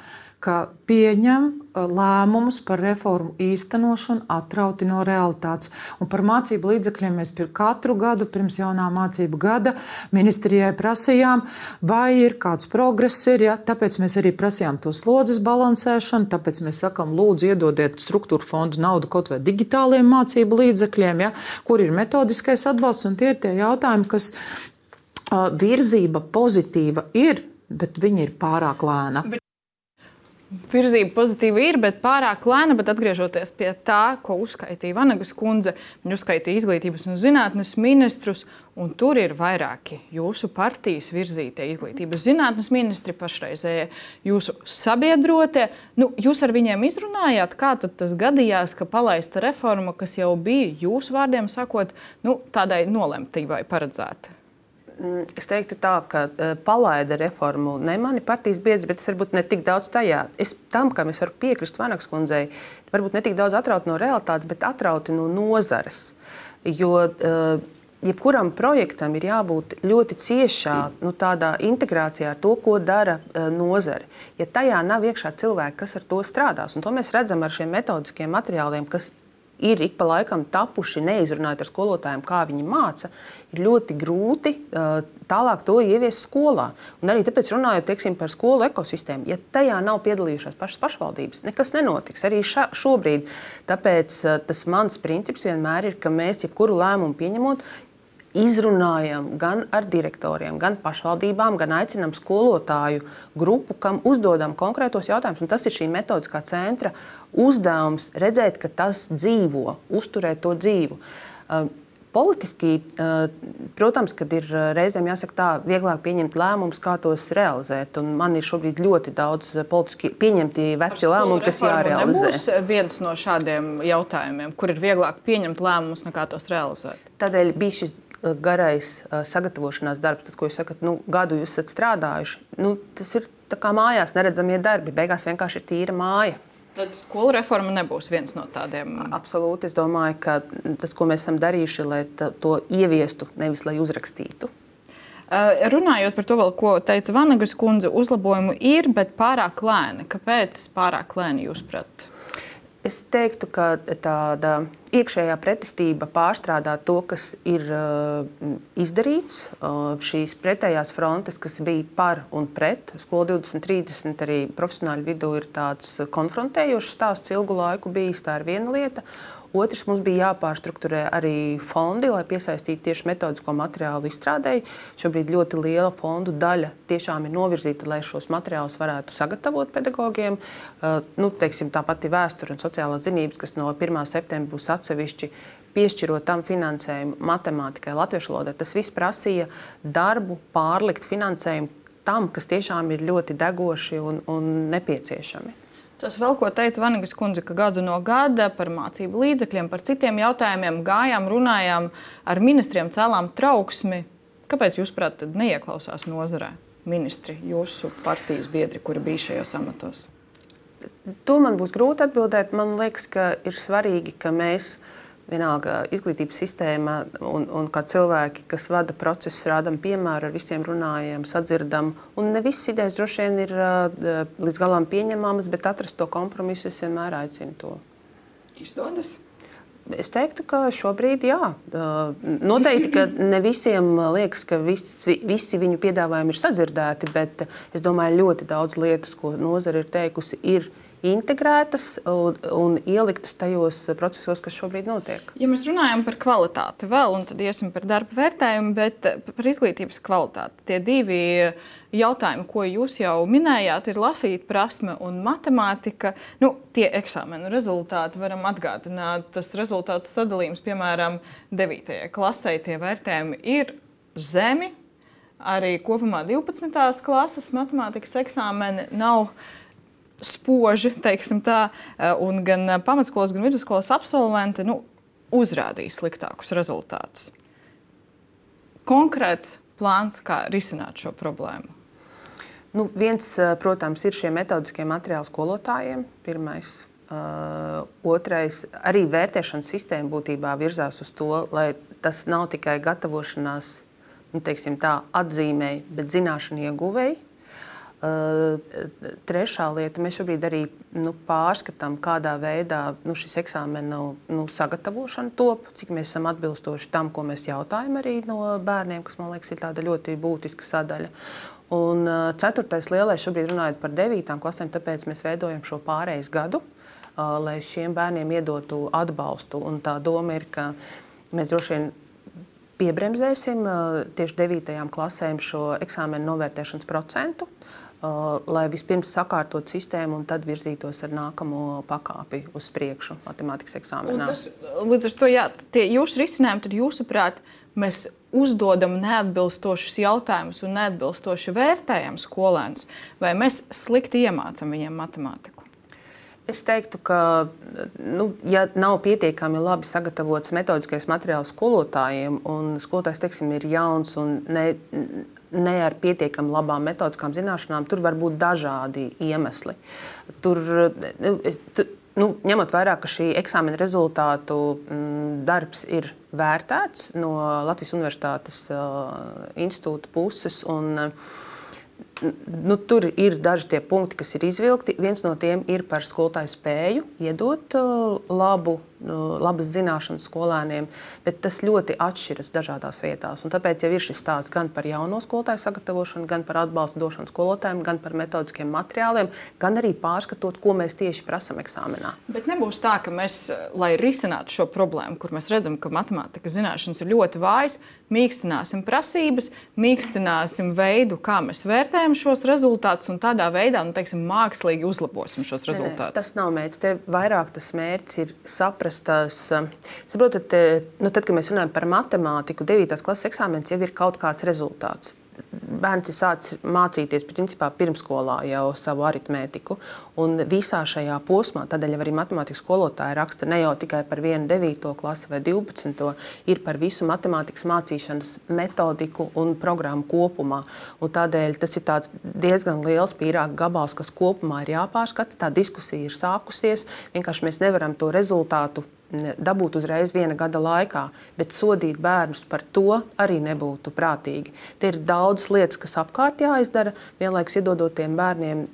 ka pieņem lēmumus par reformu īstenošanu atrauti no realitātes. Un par mācību līdzekļiem mēs katru gadu pirms jaunā mācību gada ministrijai prasījām, vai ir kāds progress ir, ja? Tāpēc mēs arī prasījām to slodzes balansēšanu, tāpēc mēs sakam, lūdzu iedodiet struktūra fondu naudu kaut vai digitāliem mācību līdzekļiem, ja? Kur ir metodiskais atbalsts, un tie ir tie jautājumi, kas virzība pozitīva ir, bet viņi ir pārāk lēna.
Virzība pozitīva ir, bet pārāk lēna, bet atgriežoties pie tā, ko uzskaitīja Vanagas kundze, viņa uzskaitīja izglītības un zinātnes ministrus, un tur ir vairāki jūsu partijas virzītie izglītības zinātnes ministri, pašreizējie jūsu sabiedrotie. Jūs ar viņiem izrunājāt, kā tad tas gadījās, ka palaista reforma, kas jau bija jūsu vārdiem sakot, tādai nolemtībai paredzēta?
Es teiktu tā, ka palaida reformu ne mani partijas biedri, bet es varbūt ne tik daudz tajā. Tam, kam es varu piekrist Vanagas kundzei, varbūt ne tik daudz atrauti no realitātes, bet atrauti no nozares. Jo jebkuram projektam ir jābūt ļoti ciešā tādā integrācijā ar to, ko dara nozare. Ja tajā nav iekšā cilvēki, kas ar to strādās, un to mēs redzam ar šiem metodiskiem materiāliem, kas ir ik pa laikam tapuši, neizrunājot ar skolotājiem, kā viņi māca, ir ļoti grūti tālāk to ieviest skolā. Un arī tāpēc runājot, teiksim, par skolu ekosistēmu, ja tajā nav piedalījušās pašas pašvaldības, nekas nenotiks arī šobrīd. Tāpēc tas mans princips vienmēr ir, ka mēs jebkuru lēmumu pieņemot, izrunājam gan ar direktoriem, gan pašvaldībām, gan aicinām skolotāju grupu, kam uzdodam konkrētos jautājumus. Un tas ir šī metodiskā centra uzdevums redzēt, ka tas dzīvo, uzturēt to dzīvu. Politiski, protams, kad ir reizēm jāsaka tā, vieglāk pieņemt lēmumus, kā tos realizēt. Un man ir šobrīd ļoti daudz politiski pieņemti veci lēmumi, kas jārealizē.
Nebūs viens no šādiem jautājumiem, kur ir vieglāk pieņemt lēmumus, nekā tos realizēt?
Tādēļ bija šis garais sagatavošanās darbs, tas, ko jūs sakat, gadu jūs esat strādājuši. Tas ir tā kā mājās neredzamie darbi. Beigās vienkārši ir tīra māja.
Tad skolu reforma nebūs viens no tādiem?
Absolūti. Es domāju, ka tas, ko mēs esam darījuši, lai to ieviestu, nevis lai uzrakstītu.
Runājot par to, vēl, ko teica Vanagas kundze, uzlabojumu ir, bet pārāk lēni. Kāpēc pārāk lēni jūs prāt?
Es teiktu, ka tāda iekšējā pretestība pārstrādā to, kas ir izdarīts. Šīs pretējās frontes, kas bija par un pret, Skola 2030 arī profesionāļu vidū ir tāds konfrontējošs stāsts ilgu laiku bijis. Tā ir viena lieta. Otrs, mums bija jāpārstrukturē arī fondi, lai piesaistītu tieši metodisko materiālu izstrādēji. Šobrīd ļoti liela fondu daļa tiešām ir novirzīta, lai šos materiālus varētu sagatavot pedagogiem. Teiksim, tā pati vēsture un sociālās zinības, kas no 1. septembra būs atsevišķi, piešķirot tam finansējumu matemātikai, latviešu valodai. Tas viss prasīja darbu, pārlikt finansējumu tam, kas tiešām ir ļoti degoši un nepieciešami.
Tas vēl, ko teica Vanagas kundze, ka gadu no gada par mācību līdzekļiem, par citiem jautājumiem gājām, runājām ar ministriem, cēlām trauksmi. Kāpēc jūs, prāt, neieklausās nozarē ministri, jūsu partijas biedri, kuri bija šajos amatos?
To man būs grūti atbildēt. Man liekas, ka ir svarīgi, ka mēs vienalga izglītības sistēma un kā cilvēki, kas vada procesus, rādam piemēru, ar visiem runājam, sadzirdam. Un ne visas idejas droši vien ir līdz galam pieņemamas, bet atrast to kompromisu es vienmēr aicinu to.
Izdodas?
Es teiktu, ka šobrīd jā. Noteikti, ka ne visiem liekas, ka visi viņu piedāvājumi ir sadzirdēti, bet es domāju, ļoti daudz lietas, ko nozare ir teikusi, ir integrētas un ieliktas tajos procesos, kas šobrīd notiek.
Ja mēs runājam par kvalitāti vēl, un tad iesim par darba vērtējumu, bet par izglītības kvalitāti. Tie divi jautājumi, ko jūs jau minējāt, ir lasīt prasme un matemātika. Tie eksāmenu rezultāti varam atgādināt. Tas rezultāts sadalījums, piemēram, 9. klasē, tie vērtējumi ir zemi. Arī kopumā 12. klases matemātikas eksāmeni nav spoži, teiksim tā, un gan pamatskolas, gan vidusskolas absolventi uzrādīja sliktākus rezultātus. Konkrēts plāns, kā risināt šo problēmu?
Viens, protams, ir šie metodiskie materiāli skolotājiem. Pirmais. Otrais, arī vērtēšanas sistēma būtībā virzās uz to, lai tas nav tikai gatavošanās, teiksim tā, atzīmēji, bet zināšanu ieguvēji. Trešā lieta, mēs šobrīd arī pārskatām, kādā veidā šis eksāmenu sagatavošana top, cik mēs esam atbilstoši tam, ko mēs jautājam arī no bērniem, kas, man liekas, ir tāda ļoti būtiska sadaļa. Un ceturtais lielais, šobrīd runājot par 9. klasēm, tāpēc mēs veidojam šo pārejas gadu, lai šiem bērniem iedotu atbalstu. Un tā doma ir, ka mēs droši vien piebremzēsim tieši 9. klasēm šo eksāmenu novērtēšanas procentu, lai vispirms sakārtot sistēmu un tad virzītos ar nākamo pakāpi uz priekšu matemātikas eksāmenā.
Līdz ar to, tie jūsu risinājumi, tad jūsuprāt, mēs uzdodam neatbilstošus jautājumus un neatbilstoši vērtējam skolēnus, vai mēs slikti iemācam viņiem matemātiku?
Es teiktu, ka, ja nav pietiekami labi sagatavots metodiskais materiāls skolotājiem, un skolotājs, teiksim, ir jauns un ne ar pietiekami labām metodiskām zināšanām, tur var būt dažādi iemesli. Tur, ņemot vērā, ka šī eksāmena rezultātu darbs ir vērtēts no Latvijas Universitātes institūta puses, un tur ir daži tie punkti, kas ir izvilkti. Viens no tiem ir par skolotāju spēju iedot labas zināšanas skolēniem, bet tas ļoti atšķiras dažādās vietās. Un tāpēc jau ir šis stāsts gan par jauno skolotāju sagatavošanu, gan par atbalstu došanu skolotājiem, gan par metodiskiem materiāliem, gan arī pārskatot, ko mēs tieši prasam eksāmenā.
Bet nebūs tā, ka mēs, lai risinātu šo problēmu, kur mēs redzam, ka matemātikas zināšanas ir ļoti vājas, mīkstināsim prasības, mīkstināsim veidu, kā mēs vērtējam šos rezultātus, un tādā veidā, mākslīgi uzlabosim šos rezultātus.
Tas nav mērķis. Te vairāk tas mērķis ir saprast tās. Saprotat, tad, kad mēs runājam par matemātiku, 9. klases eksāmenis jau ir kaut kāds rezultāts. Bērns ir sācis mācīties principā pirmskolā jau savu aritmētiku. Un visā šajā posmā, tādēļ arī matemātikas skolotāji raksta ne jau tikai par vienu 9. klasi vai 12. ir par visu matemātikas mācīšanas metodiku un programmu kopumā. Un tādēļ tas ir tāds diezgan liels pīrāga gabals, kas kopumā ir jāpārskata. Tā diskusija ir sākusies. Vienkārši mēs nevaram to rezultātu dabūt uzreiz viena gada laikā, bet sodīt bērnus par to arī nebūtu prātīgi. Te ir daudz lietas, kas apkārt jāizdara, vienlaikus iedodot tiem bērniem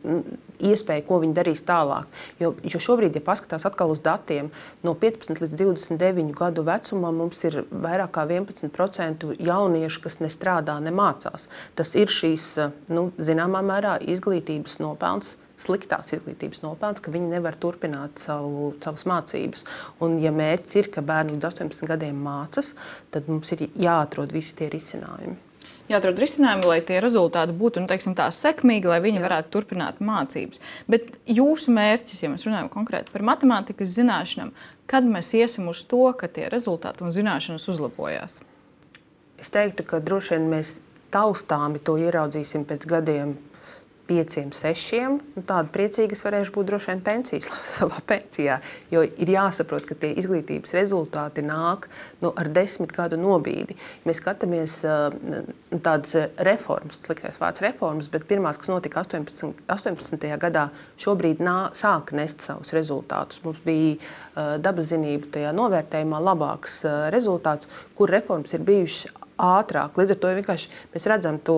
iespēju, ko viņi darīs tālāk. Jo šobrīd, ja paskatās atkal uz datiem, no 15 līdz 29 gadu vecumā mums ir vairāk kā 11% jauniešu, kas nestrādā, nemācās. Tas ir šīs, zināmā mērā, izglītības nopelns, sliktās izglītības nopelns, ka viņi nevar turpināt savas mācības. Un, ja mērķis ir, ka bērni līdz 18 gadiem mācas, tad mums ir jāatrod visi tie risinājumi.
Jāatrod risinājumi, lai tie rezultāti būtu sekmīgi, lai viņi varētu turpināt mācības. Bet jūsu mērķis, ja mēs runājam konkrēti par matemātikas zināšanām, kad mēs iesim uz to, ka tie rezultāti un zināšanas uzlabojās?
Es teiktu, ka droši vien mēs taustāmi to ieraudzīsim pēc gadiem, 5, 6, tāda priecīga es varēšu būt droši vien savā pensijā. Jo ir jāsaprot, ka tie izglītības rezultāti nāk ar 10 gadu nobīdi. Mēs skatāmies tādas reformas, sliktais vārds reformas, bet pirmās, kas notika 18. gadā, šobrīd sāk nest savus rezultātus. Mums bija dabaszinību tajā novērtējumā labāks rezultāts, kur reformas ir bijušas ātrāk. Līdz ar to vienkārši mēs redzam to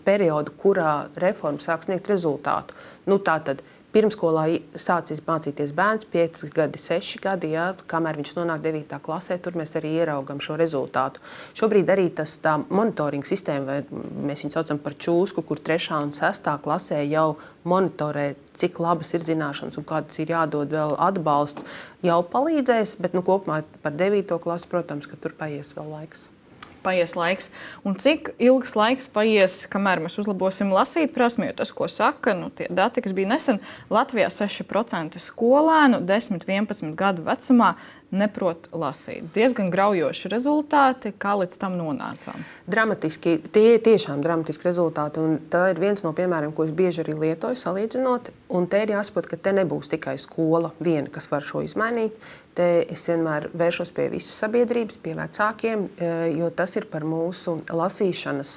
periodu, kurā reforma sāk sniegt rezultātu. Tātad pirmskolā sācis mācīties bērns 5 gadi, 6 gadi, kamēr viņš nonāk 9. klasē, tur mēs arī ieraugam šo rezultātu. Šobrīd arī tā monitoringa sistēma, vai mēs viņu saucam par čūsku, kur 3. un 6. klasē jau monitorē, cik labas ir zināšanas un kādas ir jādod vēl atbalsts, jau palīdzēs, bet kopumā par 9. klasi, protams, ka tur paies vēl laiks.
Paies laiks. Un cik ilgs laiks paies, kamēr mēs uzlabosim lasīt prasmi, jo tas, ko saka, tie dati, kas bija nesen, Latvijā 6% skolēnu 10–11 gadu vecumā neprot lasīt. Diezgan graujoši rezultāti, kā līdz tam nonācām.
Dramatiski, tie ir tiešām dramatiski rezultāti, un tā ir viens no piemēriem, ko es bieži arī lietoju salīdzinot, un te ir jāsaprot, ka te nebūs tikai skola viena, kas var šo izmainīt. Te es vienmēr vēršos pie visas sabiedrības, pie vecākiem, jo tas ir par mūsu lasīšanas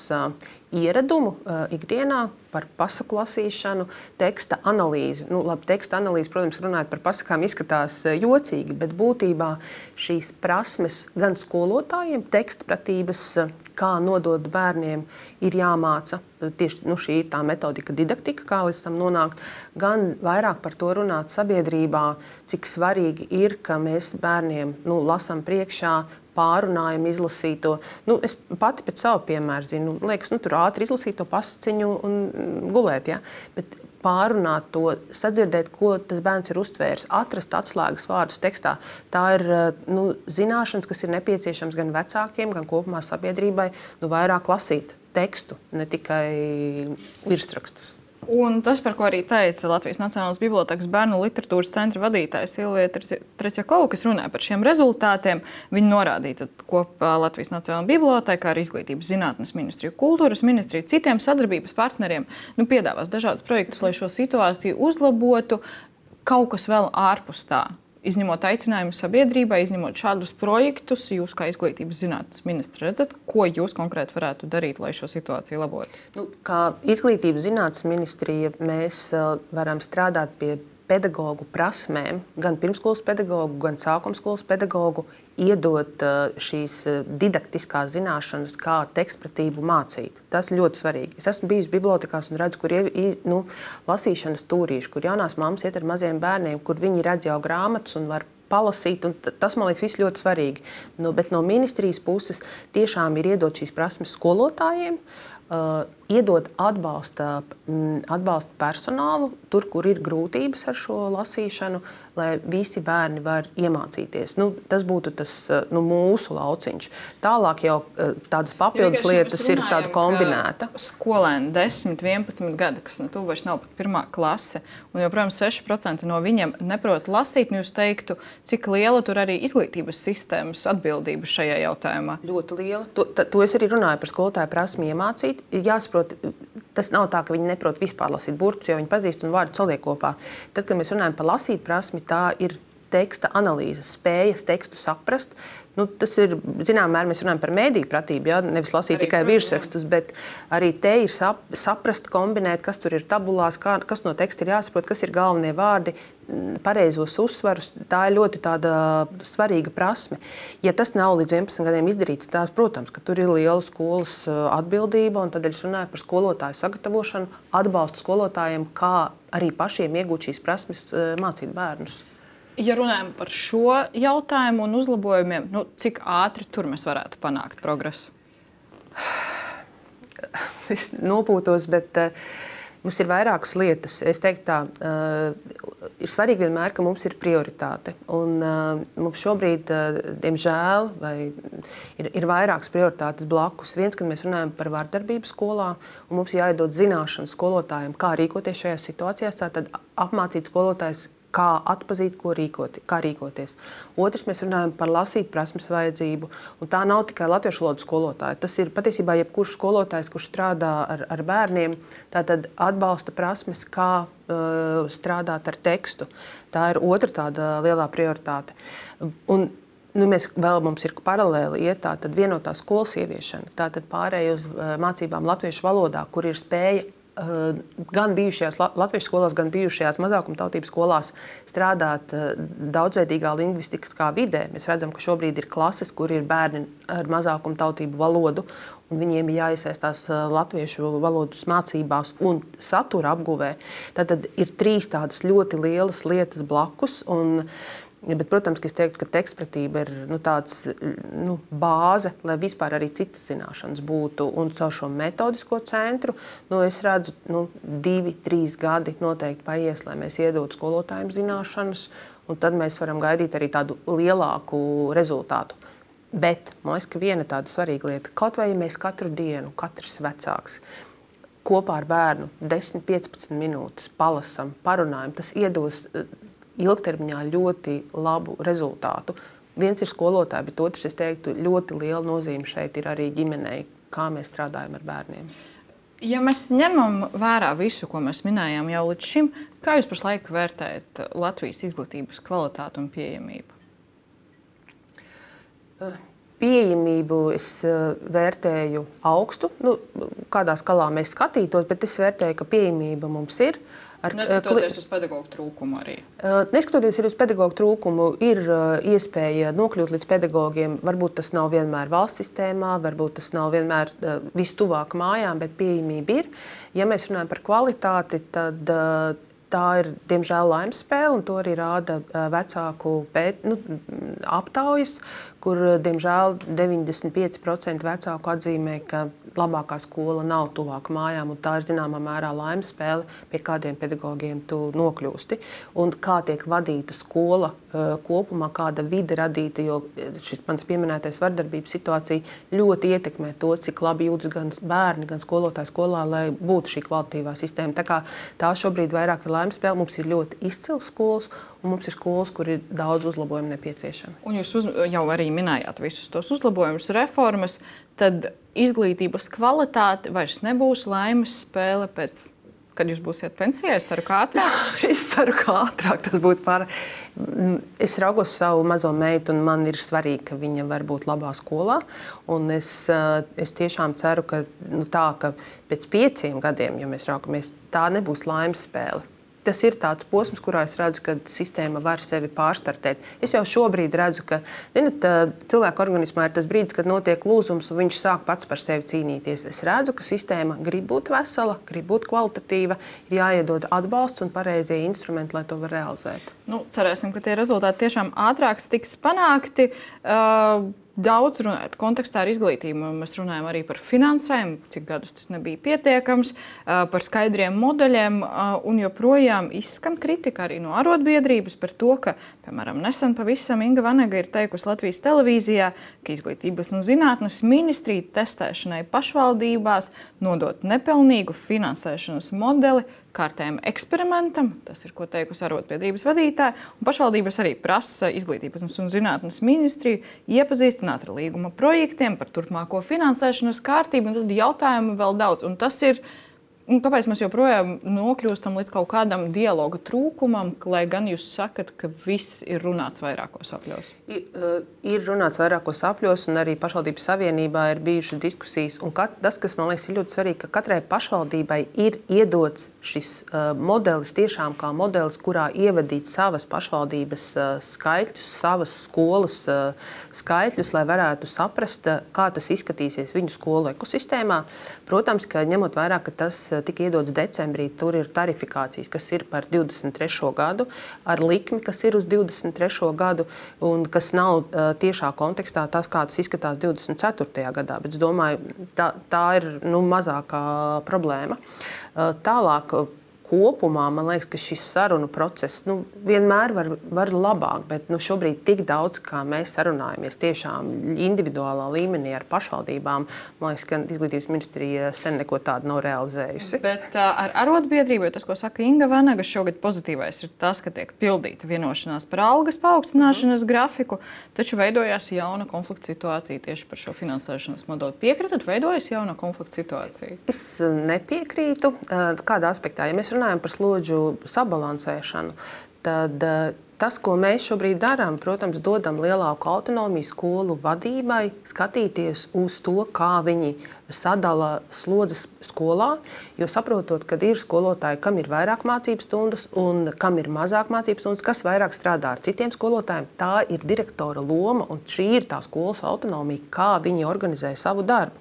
ieradumu ikdienā, par pasaku lasīšanu, teksta analīzi. Teksta analīze, protams, runājot par pasakām, izskatās jocīgi, bet būtībā šīs prasmes gan skolotājiem, tekstpratības, kā nodot bērniem, ir jāmāca. Tieši šī ir tā metodika, didaktika, kā līdz tam nonākt. Gan vairāk par to runāt sabiedrībā, cik svarīgi ir, ka mēs bērniem lasām priekšā, pārunājam, izlasīto. Es pati pēc savu piemēru zinu, liekas, tur ātri izlasīt to pasaciņu un gulēt, ja? Bet pārunāt to, sadzirdēt, ko tas bērns ir uztvērs, atrast atslēgas vārdus tekstā. Tā ir zināšanas, kas ir nepieciešams gan vecākiem, gan kopumā sabiedrībai, vairāk lasīt tekstu, ne tikai virsrakstus.
Un tas, par ko arī teica Latvijas Nacionālās bibliotēkas bērnu literatūras centra vadītājs Silvija Tretjakova, kas runāja par šiem rezultātiem, viņi norādīja kopā Latvijas Nacionālā bibliotēkā ar Izglītības zinātnes ministriju, kultūras ministriju, citiem sadarbības partneriem, piedāvās dažādus projektus, lai šo situāciju uzlabotu, kaut kas vēl ārpus tā. Izņemot aicinājumu sabiedrībai, izņemot šādus projektus, jūs kā Izglītības zinātnes ministri redzat, ko jūs konkrēti varētu darīt, lai šo situāciju labotu?
Kā Izglītības zinātnes ministrija mēs varam strādāt pie pedagoģu prasmēm, gan pirmskolas pedagoģu, gan sākumskolas pedagoģu, iedot šīs didaktiskās zināšanas, kā tekstpratību mācīt. Tas ļoti svarīgi. Es esmu bijusi bibliotekās un redzu, kur ir lasīšanas tūrīši, kur jaunās mammas iet ar maziem bērniem, kur viņi redz jau grāmatas un var palasīt, un tas, man liekas, viss ļoti svarīgi. Bet no ministrijas puses tiešām ir iedot šīs prasmes skolotājiem, iedot atbalsta personālu tur, kur ir grūtības ar šo lasīšanu, lai visi bērni var iemācīties. Tas būtu tas mūsu lauciņš. Tālāk jau tādas papildus lietas ir tāda kombinēta.
Skolēni 10, 11 gadi, kas tu vairs nav pat 1. klase, un joprojām 6% no viņiem neprot lasīt, jūs teiktu, cik liela tur arī izglītības sistēmas atbildība šajā jautājumā?
Ļoti liela. To es arī runāju par skolotāju prasmi iemācīt. Jāsaprot, tas nav tā, ka viņi neprot vispār lasīt burtus, jo viņi pazīst un vārdu saliek kopā. Tad, kad mēs runājam par lasīt prasmi, tā ir teksta analīze, spējas tekstu saprast. Tas ir, zinām, mērā mēs runājam par mēdīju pratību, ja? Nevis lasīt arī tikai virsrakstus, bet arī te ir saprast, kombinēt, kas tur ir tabulās, kas no teksta ir jāsaprot, kas ir galvenie vārdi, pareizos uzsvarus. Tā ir ļoti tāda svarīga prasme. Ja tas nav līdz 11 gadiem izdarīts, tās, protams, ka tur ir liela skolas atbildība, un tad es runāju par skolotāju sagatavošanu, atbalstu skolotājiem, kā arī pašiem iegūt šīs prasmes, mācīt bērnus.
Ja runājam par šo jautājumu un uzlabojumiem, cik ātri tur mēs varētu panākt progresu?
Es nopūtos, bet mums ir vairākas lietas. Es teiktu tā, ir svarīgi vienmēr, ka mums ir prioritāte. Un mums šobrīd, diemžēl, ir vairākas prioritātes blakus. Viens, kad mēs runājam par vardarbību skolā, un mums jāiedod zināšanas skolotājiem, kā rīkoties šajās situācijās, tātad apmācīt skolotājus, kā atpazīt, kā rīkoties. Otrs, mēs runājam par lasīt prasmes vajadzību. Un tā nav tikai latviešu valodas skolotāja. Tas ir patiesībā jebkurš skolotājs, kurš strādā ar bērniem, tātad atbalsta prasmes, kā strādāt ar tekstu. Tā ir otra tāda lielā prioritāte. Un, mums ir paralēli iet tātad vienotā skolas ieviešana. Tātad pārēj uz mācībām latviešu valodā, kur ir spēja gan bijušajās latviešu skolās, gan bijušajās mazākumtautības skolās strādāt daudzveidīgā lingvistiskā vidē. Mēs redzam, ka šobrīd ir klases, kur ir bērni ar mazākumtautību valodu, un viņiem ir jāiesaistās latviešu valodas mācībās un satura apguvē. Tātad ir 3 tādas ļoti lielas lietas blakus. Bet, protams, es teiktu, ka tekstpratība ir tāds bāze, lai vispār arī citas zināšanas būtu. Un caur šo metodisko centru es redzu, 2-3 gadi noteikti paies, lai mēs iedotu skolotājiem zināšanas, un tad mēs varam gaidīt arī tādu lielāku rezultātu. Bet man liekas, ka viena tāda svarīga lieta, kaut vai ja mēs katru dienu, katrs vecāks, kopā ar bērnu 10-15 minūtes palasam, parunājam, tas iedos ilgtermiņā ļoti labu rezultātu. Viens ir skolotāji, bet otrs, es teiktu, ļoti liela nozīme šeit ir arī ģimenei, kā mēs strādājam ar bērniem.
Ja mēs ņemam vērā visu, ko mēs minējām jau līdz šim, kā jūs pašlaik vērtējat Latvijas izglītības kvalitāti un pieejamību?
Pieejamību es vērtēju augstu. Kādā skalā mēs skatītos, bet es vērtēju, ka pieejamība mums ir.
Neskatoties uz pedagoģu trūkumu arī.
Neskatoties uz pedagoģu trūkumu, ir iespēja nokļūt līdz pedagogiem. Varbūt tas nav vienmēr valsts sistēmā, varbūt tas nav vienmēr vistuvāk mājām, bet pieejamība ir. Ja mēs runājam par kvalitāti, tad tā ir, diemžēl, laimes spēle, un to arī rāda vecāku aptaujas, kur, diemžēl, 95% vecāku atzīmē, ka labākā skola nav tuvāk mājām, un tā ir zināmā mērā laimes spēle, pie kādiem pedagogiem tu nokļūsti. Un kā tiek vadīta skola kopumā, kāda vide radīta, jo šis mans pieminētais vardarbības situācija ļoti ietekmē to, cik labi jūtas gan bērni, gan skolotāji skolā, lai būtu šī kvalitatīvā sistēma. Tā kā tā šobrīd vairāk ir laimes spēle, mums ir ļoti izcils skolas, un mums ir skolas, kur ir daudz uzlabojumu nepieciešami.
Un jūs jau arī minējāt visus tos uzlabojumus, reformas, tad izglītības kvalitāte vairs nebūs laimes spēle pēc, kad jūs būsiet pensijā? Es ceru, ka ātrāk.
Es ceru, ka ātrāk tas būtu pārāk. Es raugos savu mazo meitu, un man ir svarīgi, ka viņa var būt labā skolā. Un es tiešām ceru, ka ka pēc 5 gadiem, ja mēs raugamies, tā nebūs laimes spēle. Tas ir tāds posms, kurā es redzu, ka sistēma var sevi pārstartēt. Es jau šobrīd redzu, ka cilvēka organismā ir tas brīdis, kad notiek lūzums, un viņš sāk pats par sevi cīnīties. Es redzu, ka sistēma grib būt vesela, grib būt kvalitatīva, ir jāiedod atbalsts un pareizie instrumenti, lai to var realizēt.
Cerēsim, ka tie rezultāti tiešām ātrāk tiks panākti. Daudz runājot kontekstā ar izglītību, mēs runājam arī par finansēm, cik gadus tas nebija pietiekams, par skaidriem modeļiem, un joprojām izskan kritika arī no arotbiedrības par to, ka, piemēram, nesen pavisam Inga Vanega ir teikusi Latvijas televīzijā, ka Izglītības un zinātnes ministrija testēšanai pašvaldībās nodot nepilnīgu finansēšanas modeli kārtējam eksperimentam, tas ir, ko teikusi arotbiedrības vadītāja, un pašvaldības arī prasa Izglītības un zinātnes ministriju iepazīstināt ar līguma projektiem par turpmāko finansēšanas kārtību, un tad jautājumu vēl daudz. Un tas ir, kāpēc mēs joprojām nokļūstam līdz kaut kādam dialoga trūkumam, lai gan jūs sakat, ka viss ir runāts vairākos apļos?
Ir runāts vairākos apļos, un arī pašvaldības savienībā ir bijušas diskusijas. Un tas, kas man liekas ir ļoti svarīgi, ka katrai pašvaldībai ir iedots šis modelis tiešām kā modelis, kurā ievadīt savas pašvaldības skaitļus, savas skolas skaitļus, lai varētu saprast, kā tas izskatīsies viņu skolu ekosistēmā. Protams, ka ņemot vērā, ka tas tika iedots decembrī, tur ir tarifikācijas, kas ir par 23. gadu, ar likmi, kas ir uz 23. gadu, un kas nav tiešā kontekstā tas, kā tas izskatās 24. gadā. Bet es domāju, tā ir mazākā problēma. Tālāk, kopumā man liekas, ka šis sarunu process vienmēr var labāk, bet šobrīd tik daudz, kā mēs sarunājamies tiešām individuālā līmenī ar pašvaldībām, man liekas, ka izglītības ministrija sen neko tādu nav realizējusi.
Bet ar arotbiedrību, tas, ko saka Inga Vanaga, šogad pozitīvais ir tas, ka tiek pildīta vienošanās par algas paaugstināšanas grafiku, taču veidojās jauna konflikta situācija tieši par šo finansēšanas modeli. Piekritat, veidojas jauna konflikta situācija?
Es nepiekrītu. Kādā aspektā? Ja mēs runājam par slodžu sabalansēšanu, tad tas, ko mēs šobrīd darām, protams, dodam lielāku autonomiju skolu vadībai, skatīties uz to, kā viņi sadala slodzes skolā, jo saprotot, ka ir skolotāji, kam ir vairāk mācību stundas un kam ir mazāk mācību stundas, kas vairāk strādā ar citiem skolotājiem, tā ir direktora loma un šī ir tā skolas autonomija, kā viņi organizē savu darbu.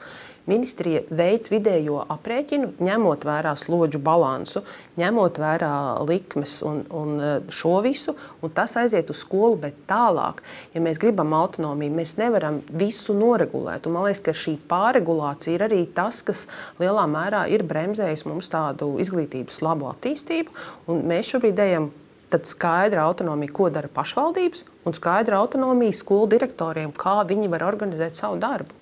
Ministrija veids vidējo aprēķinu, ņemot vērā slodžu balansu, ņemot vērā likmes un šo visu, un tas aiziet uz skolu, bet tālāk, ja mēs gribam autonomiju, mēs nevaram visu noregulēt. Un man liekas, ka šī pārregulācija ir arī tas, kas lielā mērā ir bremzējis mums tādu izglītības labu attīstību, un mēs šobrīd ejam tad skaidra autonomija, ko dara pašvaldības, un skaidra autonomija skolu direktoriem, kā viņi var organizēt savu darbu.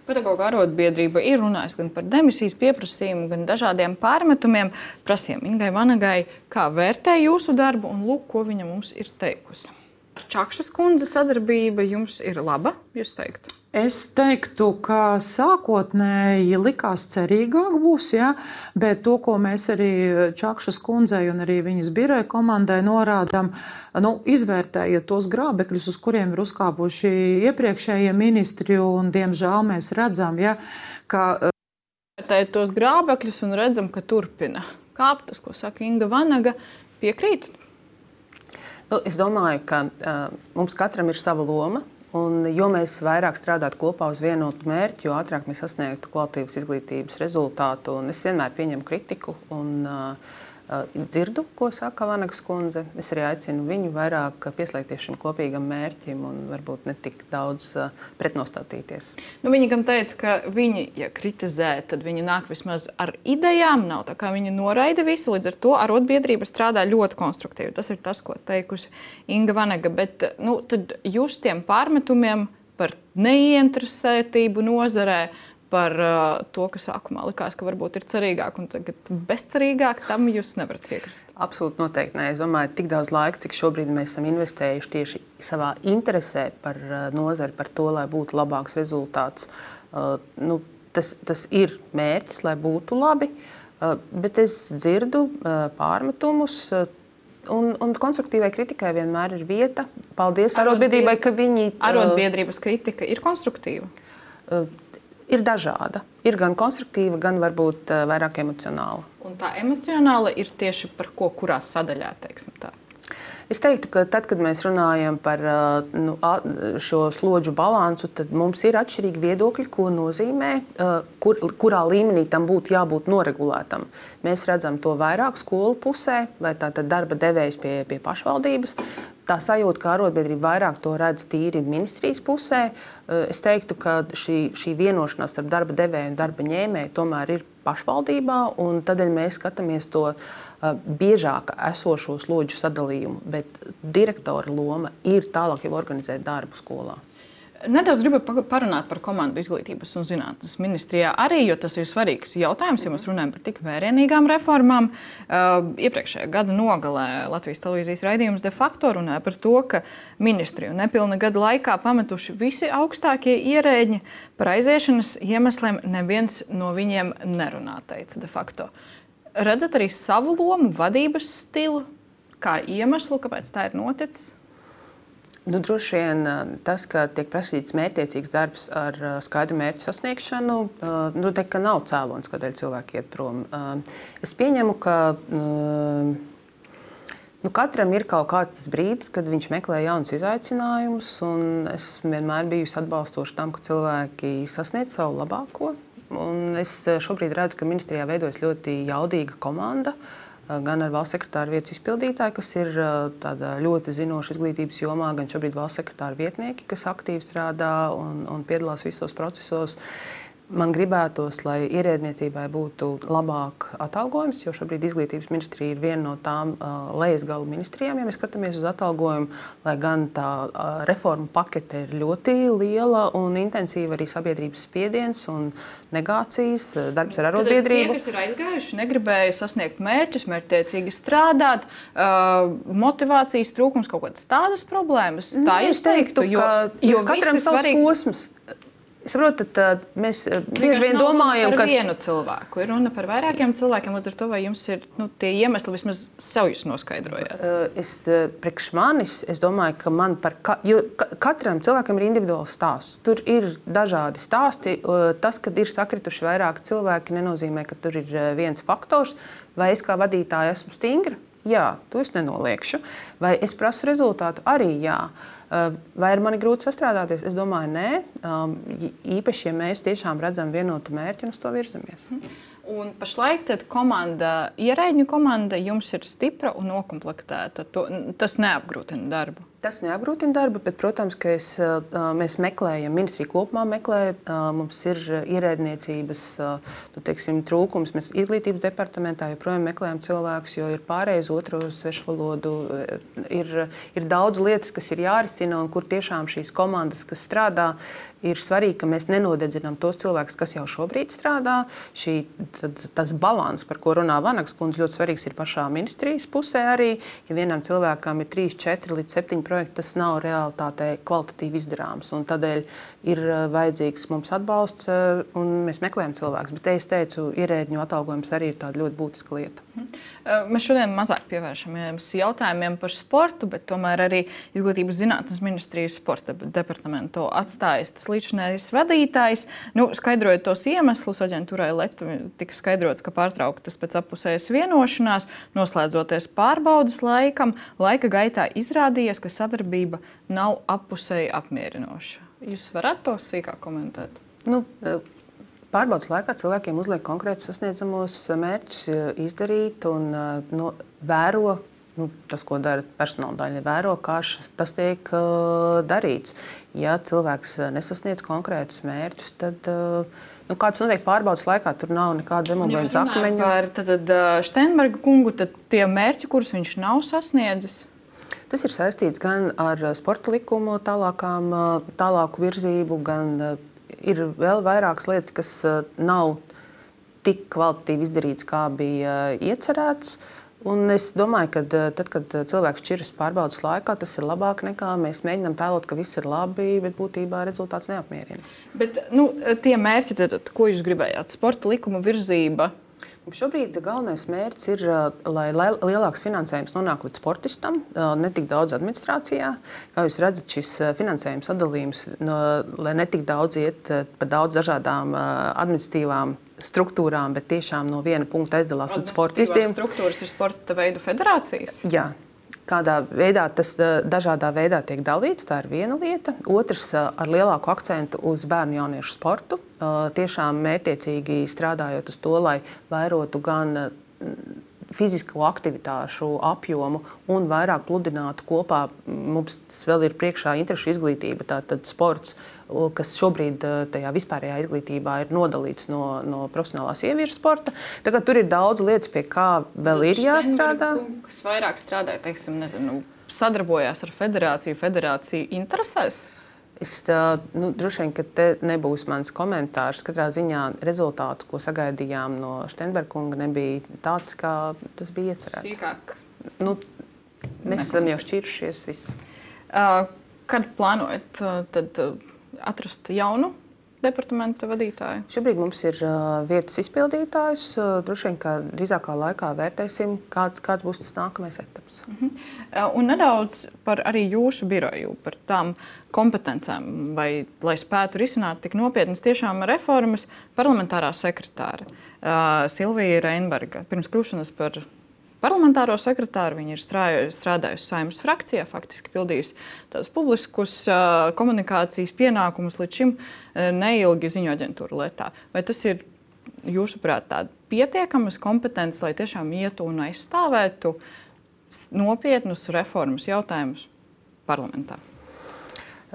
Pedagoģa arotbiedrība ir runājusi gan par demisijas pieprasījumu, gan dažādiem pārmetumiem. Prasījām Ingai Vanagai, kā vērtē jūsu darbu, un lūk, ko viņa mums ir teikusi. Čakšas kundze sadarbība jums ir laba, jūs teiktu?
Es teiktu, ka sākotnēji likās cerīgāk būs, ja, bet to, ko mēs arī Čakšas kundzei un arī viņas biroja komandai norādām, izvērtējiet tos grābekļus, uz kuriem ir uzkāpuši iepriekšējie ministri, un diemžēl mēs redzam, ja, ka...
Vērtējot tos grābekļus un redzam, ka turpina kāpt, tas, ko saka Inga Vanaga, piekrīt?
Es domāju, ka mums katram ir sava loma. Un, jo mēs vairāk strādātu kopā uz vienotu mērķi, jo ātrāk mēs sasniegtu kvalitīvas izglītības rezultātu. Un es vienmēr pieņemu kritiku un dzirdu, ko saka Vanagas kundze. Es arī aicinu viņu vairāk pieslēgties šim kopīgam mērķim un varbūt ne tik daudz pretnostatīties.
Viņi gan teica, ka viņi, ja kritizē, tad viņi nāk vismaz ar idejām. Nav tā kā viņi noraida visu, līdz ar to arotbiedrība strādā ļoti konstruktīvi. Tas ir tas, ko teikusi Inga Vanaga. Bet tad jūs tiem pārmetumiem par neieinteresētību nozarē, par to, ka sākumā likās, ka varbūt ir cerīgāk un tagad bezcerīgāk, tam jūs nevarat piekrist?
Absolūti noteikti nē. Es domāju, tik daudz laika, cik šobrīd mēs esam investējuši tieši savā interesē par nozari, par to, lai būtu labāks rezultāts. Tas ir mērķis, lai būtu labi, bet es dzirdu pārmetumus. Un konstruktīvai kritikai vienmēr ir vieta. Paldies arotbiedrībai, ka viņi...
Arotbiedrības kritika ir konstruktīva?
Ir dažāda. Ir gan konstruktīva, gan varbūt vairāk emocionāla.
Un tā emocionāla ir tieši par ko, kurā sadaļā, teiksim tā?
Es teiktu, ka tad, kad mēs runājam par šo slodžu balansu, tad mums ir atšķirīgi viedokļi, ko nozīmē, kurā līmenī tam būtu jābūt noregulētam. Mēs redzam to vairāk skolu pusē, vai tātad darba devējs pie pašvaldības. Tā sajūta, ka arotbiedrība vairāk to redz tīri ministrijas pusē. Es teiktu, ka šī vienošanās starp darba devēju un darba ņēmēju tomēr ir pašvaldībā, un tādēļ mēs skatāmies to biežāk esošo slodžu sadalījumu, bet direktora loma ir tālāk jau organizēt darbu skolā.
Nedaudz gribu parunāt par komandu izglītības un zinātnes ministrijā arī, jo tas ir svarīgs jautājums, ja mēs runājam par tik vērienīgām reformām. Iepriekšējā gada nogalē Latvijas televīzijas raidījums de facto runāja par to, ka ministriju nepilna gada laikā pametuši visi augstākie ierēģi. Par aiziešanas iemesliem neviens no viņiem nerunā, teica de facto. Redzat arī savu lomu, vadības stilu, kā iemeslu, kāpēc tā ir noticis?
Droši vien tas, ka tiek prasīts mērķtiecīgs darbs ar skaidru mērķu sasniegšanu, teikt, ka nav cēlonis, kādēļ cilvēki iet prom. Es pieņemu, ka katram ir kaut kāds tas brīdis, kad viņš meklē jaunus izaicinājumus, un es vienmēr bijusi atbalstoša tam, ka cilvēki sasniedz savu labāko. Un es šobrīd redzu, ka ministrijā veidojas ļoti jaudīga komanda, gan ar valsts sekretāra vietas izpildītāju, kas ir tāda ļoti zinoša izglītības jomā, gan šobrīd valsts sekretāra vietnieki, kas aktīvi strādā un piedalās visos procesos. Man gribētos, lai ierēdniecībai būtu labāk atalgojums, jo šobrīd izglītības ministrija ir viena no tām lejasgalu ministrijām, ja mēs skatāmies uz atalgojumu, lai gan tā reformu pakete ir ļoti liela un intensīva arī sabiedrības spiediens un negācijas, darbs ar arotbiedrību.
Tie, kas ir aizgājuši, negribēja sasniegt mērķus, mērķtiecīgi strādāt, motivācijas trūkums, kaut kādas tādas problēmas. Tā
es teiktu, jo katram savs posms. Es saprotu, tad mēs bieži vien domājam,
ka vienu cilvēku ir runa par vairākiem cilvēkiem. Līdz ar to, vai jums ir tie iemesli, vismaz sev jūs noskaidrojāt?
Priekš manis, es domāju, ka jo katram cilvēkam ir individuāls stāsts. Tur ir dažādi stāsti. Tas, kad ir sakrituši vairāki cilvēki, nenozīmē, ka tur ir viens faktors. Vai es kā vadītāja esmu stingra? Jā, to es nenoliekšu. Vai es prasu rezultātu? Arī jā. Vai ir mani grūti sastrādāties? Es domāju, nē. Īpaši, ja mēs tiešām redzam vienotu mērķi un uz to virzamies.
Un pašlaik ierēģņu komanda jums ir stipra un nokomplektēta. Tas neapgrūtina darbu.
Tas neapgrūtina darbu, bet, protams, ka mēs meklējam, ministrija kopumā meklē, mums ir ierēdniecības trūkums. Mēs izglītības departamentā joprojām meklējam cilvēkus, jo ir pārējais otro svešu valodu. Ir daudz lietas, kas ir jārisina un kur tiešām šīs komandas, kas strādā, ir svarīgi, ka mēs nenodedzinām tos cilvēkus, kas jau šobrīd strādā. Tas balans, par ko runā Vanagas kundze, ļoti svarīgs ir pašā ministrijas pusē arī. Ja vienam cilvēkam ir 3, 4 līdz 7 projekti, tas nav realitātē kvalitatīvi izdarāms. Tādēļ ir vajadzīgs mums atbalsts, un mēs meklējam cilvēkus. Bet, es teicu, ierēdņu atalgojums arī ir tāda ļoti būtiska lieta.
Mēs šodien mazāk pievēršamies jautājumiem par sportu, bet tomēr arī Izglītības zinātnes ministrijas sporta departamentu atstājas tas līdzinājais vadītājs. Skaidrojot tos iemeslus, aģentūrai Leta tika skaidrots, ka pārtrauktas pēc appusējas vienošanās, noslēdzoties pārbaudas laikam, laika gaitā izrādījies, ka sadarbība nav appusēji apmierinoša. Jūs varat to sīkāk komentēt?
Pārbaudas laikā cilvēkiem uzliek konkrētus sasniedzamos mērķus izdarīt un vēro. Tas, ko dara personāla daļa, vēro, kā tas tiek darīts. Ja cilvēks nesasniedz konkrētus mērķus, tad kāds notiek pārbaudas laikā, tur nav nekāda demogrāfijas akmeņu.
Par Steinberga kungu, tad tie mērķi, kurus viņš nav sasniedzis?
Tas ir saistīts gan ar sporta likumu tālāku virzību, gan ir vēl vairākas lietas, kas nav tik kvalitatīvi izdarītas, kā bija iecerēts. Un es domāju, ka tad, kad cilvēks šķiras pārbaudas laikā, tas ir labāk nekā mēs mēģinām tēlot, ka viss ir labi, bet būtībā rezultāts neapmierina.
Bet tie mērķi, tad, ko jūs gribējāt? Sporta likuma virzība?
Šobrīd galvenais mērķis ir, lai lielāks finansējums nonāk līdz sportistam, ne tik daudz administrācijā. Kā jūs redzat, šis finansējums sadalījums, lai ne tik daudz iet pa daudz dažādām administratīvām struktūrām, bet tiešām no viena punkta aizdalās līdz sportistiem.
Struktūras ir sporta veidu federācijas?
Jā. Kādā veidā tas dažādā veidā tiek dalīts, tā ir viena lieta. Otrs, ar lielāku akcentu uz bērnu jauniešu sportu. Tiešām mērķiecīgi strādājot uz to, lai vairotu gan fizisko aktivitāšu apjomu un vairāk pludinātu kopā. Mums tas vēl ir priekšā interešu izglītība, tātad sports, kas šobrīd tajā vispārējā izglītībā ir nodalīts no profesionālās ieviešu sporta. Tagad tur ir daudz lietas, pie kā vēl ir jāstrādā.
Kas vairāk strādāja, sadarbojās ar federāciju interesēs?
Droši vien, ka te nebūs mans komentārs. Katrā ziņā rezultātu, ko sagaidījām no Steinberga kunga, nebija tāds, kā tas bija iecerēts.
Sīkāk?
Mēs esam jau šķiršies viss.
Kad plānojat tad atrast jaunu departamenta vadītāju?
Šobrīd mums ir vietas izpildītājs. Droši vien, ka drīzākā laikā vērtēsim, kāds būs tas nākamais etaps.
Un nedaudz par arī jūsu biroju, par tām kompetencēm, lai spētu risināt tik nopietnas tiešām reformas. Parlamentārā sekretāre Silvija Reinberga pirms kļūšanas par parlamentāro sekretāru viņa ir strādājusi Saeimas frakcijā, faktiski pildījusi tādus publiskus komunikācijas pienākumus līdz šim neilgi ziņu aģentūra Letā. Vai tas ir, jūsuprāt, tāda pietiekamas kompetences, lai tiešām ietu un aizstāvētu nopietnus reformas jautājumus parlamentā?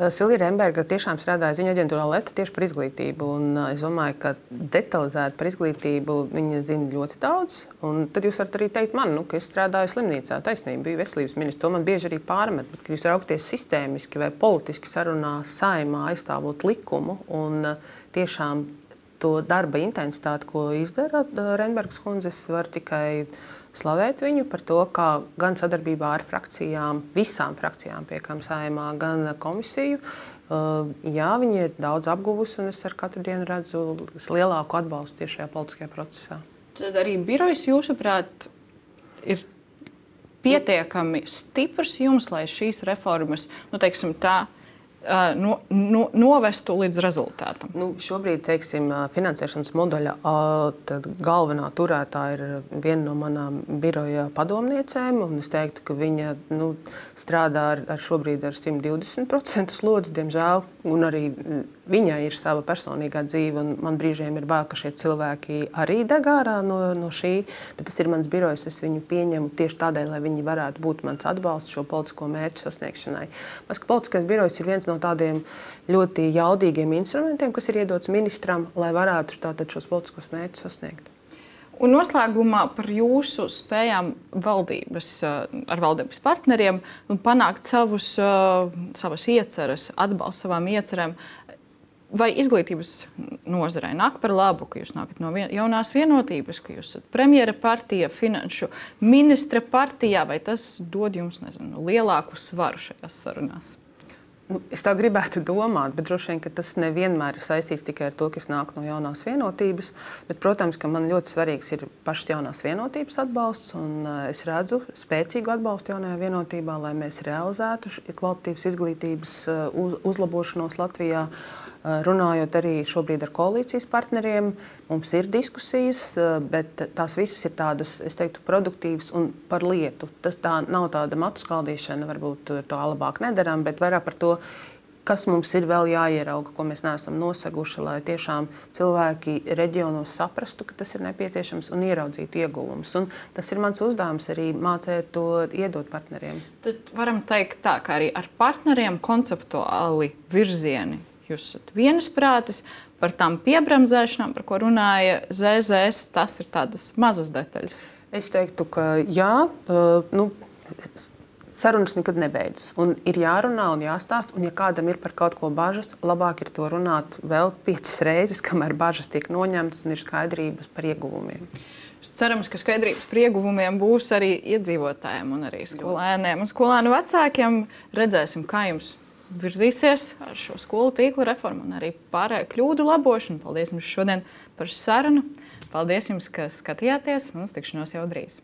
Silvija Remberga tiešām strādāja ziņu aģentūrā Leta tieši par izglītību. Es domāju, ka detalizēti par izglītību viņa zina ļoti daudz. Un tad jūs varat arī teikt man, ka es strādāju slimnīcā, taisnība, biju veselības ministrs. To man bieži arī pārmet, bet kad jūs raugties sistēmiski vai politiski sarunā saimā aizstāvot likumu un tiešām to darba intensitāti, ko izdara Rembergas kundze, es varu tikai slavēt viņu par to, kā gan sadarbībā ar frakcijām, visām frakcijām piekam saimā, gan komisiju. Jā, viņi ir daudz apguvusi, un es ar katru dienu redzu lielāku atbalstu tieši šajā politiskajā procesā.
Tad arī birojs, jūsuprāt, ir pietiekami stiprs jums, lai šīs reformas, teiksim tā, novestu līdz rezultātam?
Šobrīd, teiksim, finansēšanas modeļa galvenā turētāja ir viena no manām biroja padomniecēm, un es teiktu, ka viņa strādā šobrīd ar 120% slodzi, diemžēl, un arī viņai ir sava personīgā dzīve, un man brīžiem ir bail, ka šie cilvēki arī deg ārā no šī, bet tas ir mans birojs, es viņu pieņemu tieši tādēļ, lai viņi varētu būt mans atbalsts šo politisko mērķu sasniegšanai. Mēs, ka politiskais birojs ir viens no tādiem ļoti jaudīgiem instrumentiem, kas ir iedots ministram, lai varētu tātad šos politiskos mērķus sasniegt.
Un noslēgumā par jūsu spējām ar valdības partneriem panākt savas ieceres, atbalstu savām iecerēm. Vai izglītības nozarei nāk par labu, ka jūs nākat no jaunās vienotības, ka jūs esat premjera partija, finanšu ministra partijā, vai tas dod jums, lielāku svaru šajās sarunās?
Es tā gribētu domāt, bet droši vien, ka tas nevienmēr ir saistīts tikai ar to, ka es nāku no jaunās vienotības. Bet, protams, ka man ļoti svarīgs ir pašas jaunās vienotības atbalsts, un es redzu spēcīgu atbalstu jaunajā vienotībā, lai mēs realizētu kvalitatīvas izglītības uzlabošanos Latvijā. Runājot arī šobrīd ar koalīcijas partneriem, mums ir diskusijas, bet tās visas ir tādas, es teiktu, produktīvas un par lietu. Tā nav tāda matu skaldīšana, varbūt to labāk nedaram, bet vairāk par to, kas mums ir vēl jāierauga, ko mēs neesam noseguši, lai tiešām cilvēki reģionos saprastu, ka tas ir nepieciešams un ieraudzītu ieguvumus. Un tas ir mans uzdevums arī mācēt to iedot partneriem.
Tad varam teikt tā, ka arī ar partneriem konceptuāli virzieni jūs esat vienisprātis par tām piebremzēšanām, par ko runāja ZZS. Tas ir tādas mazas detaļas.
Es teiktu, ka jā, sarunas nekad nebeidzas. Un ir jārunā un jāstāst, un ja kādam ir par kaut ko bažas, labāk ir to runāt vēl 5 reizes, kamēr bažas tiek noņemtas un ir skaidrības par ieguvumiem.
Cerams, ka skaidrības par ieguvumiem būs arī iedzīvotājiem un arī skolēniem un skolēnu vecākiem. Redzēsim, kā jums virzīsies ar šo skolu tīkla reformu un arī pārējo kļūdu labošanu. Paldies jums šodien par sarunu. Paldies jums, ka skatījāties, un uz tikšanos jau drīz.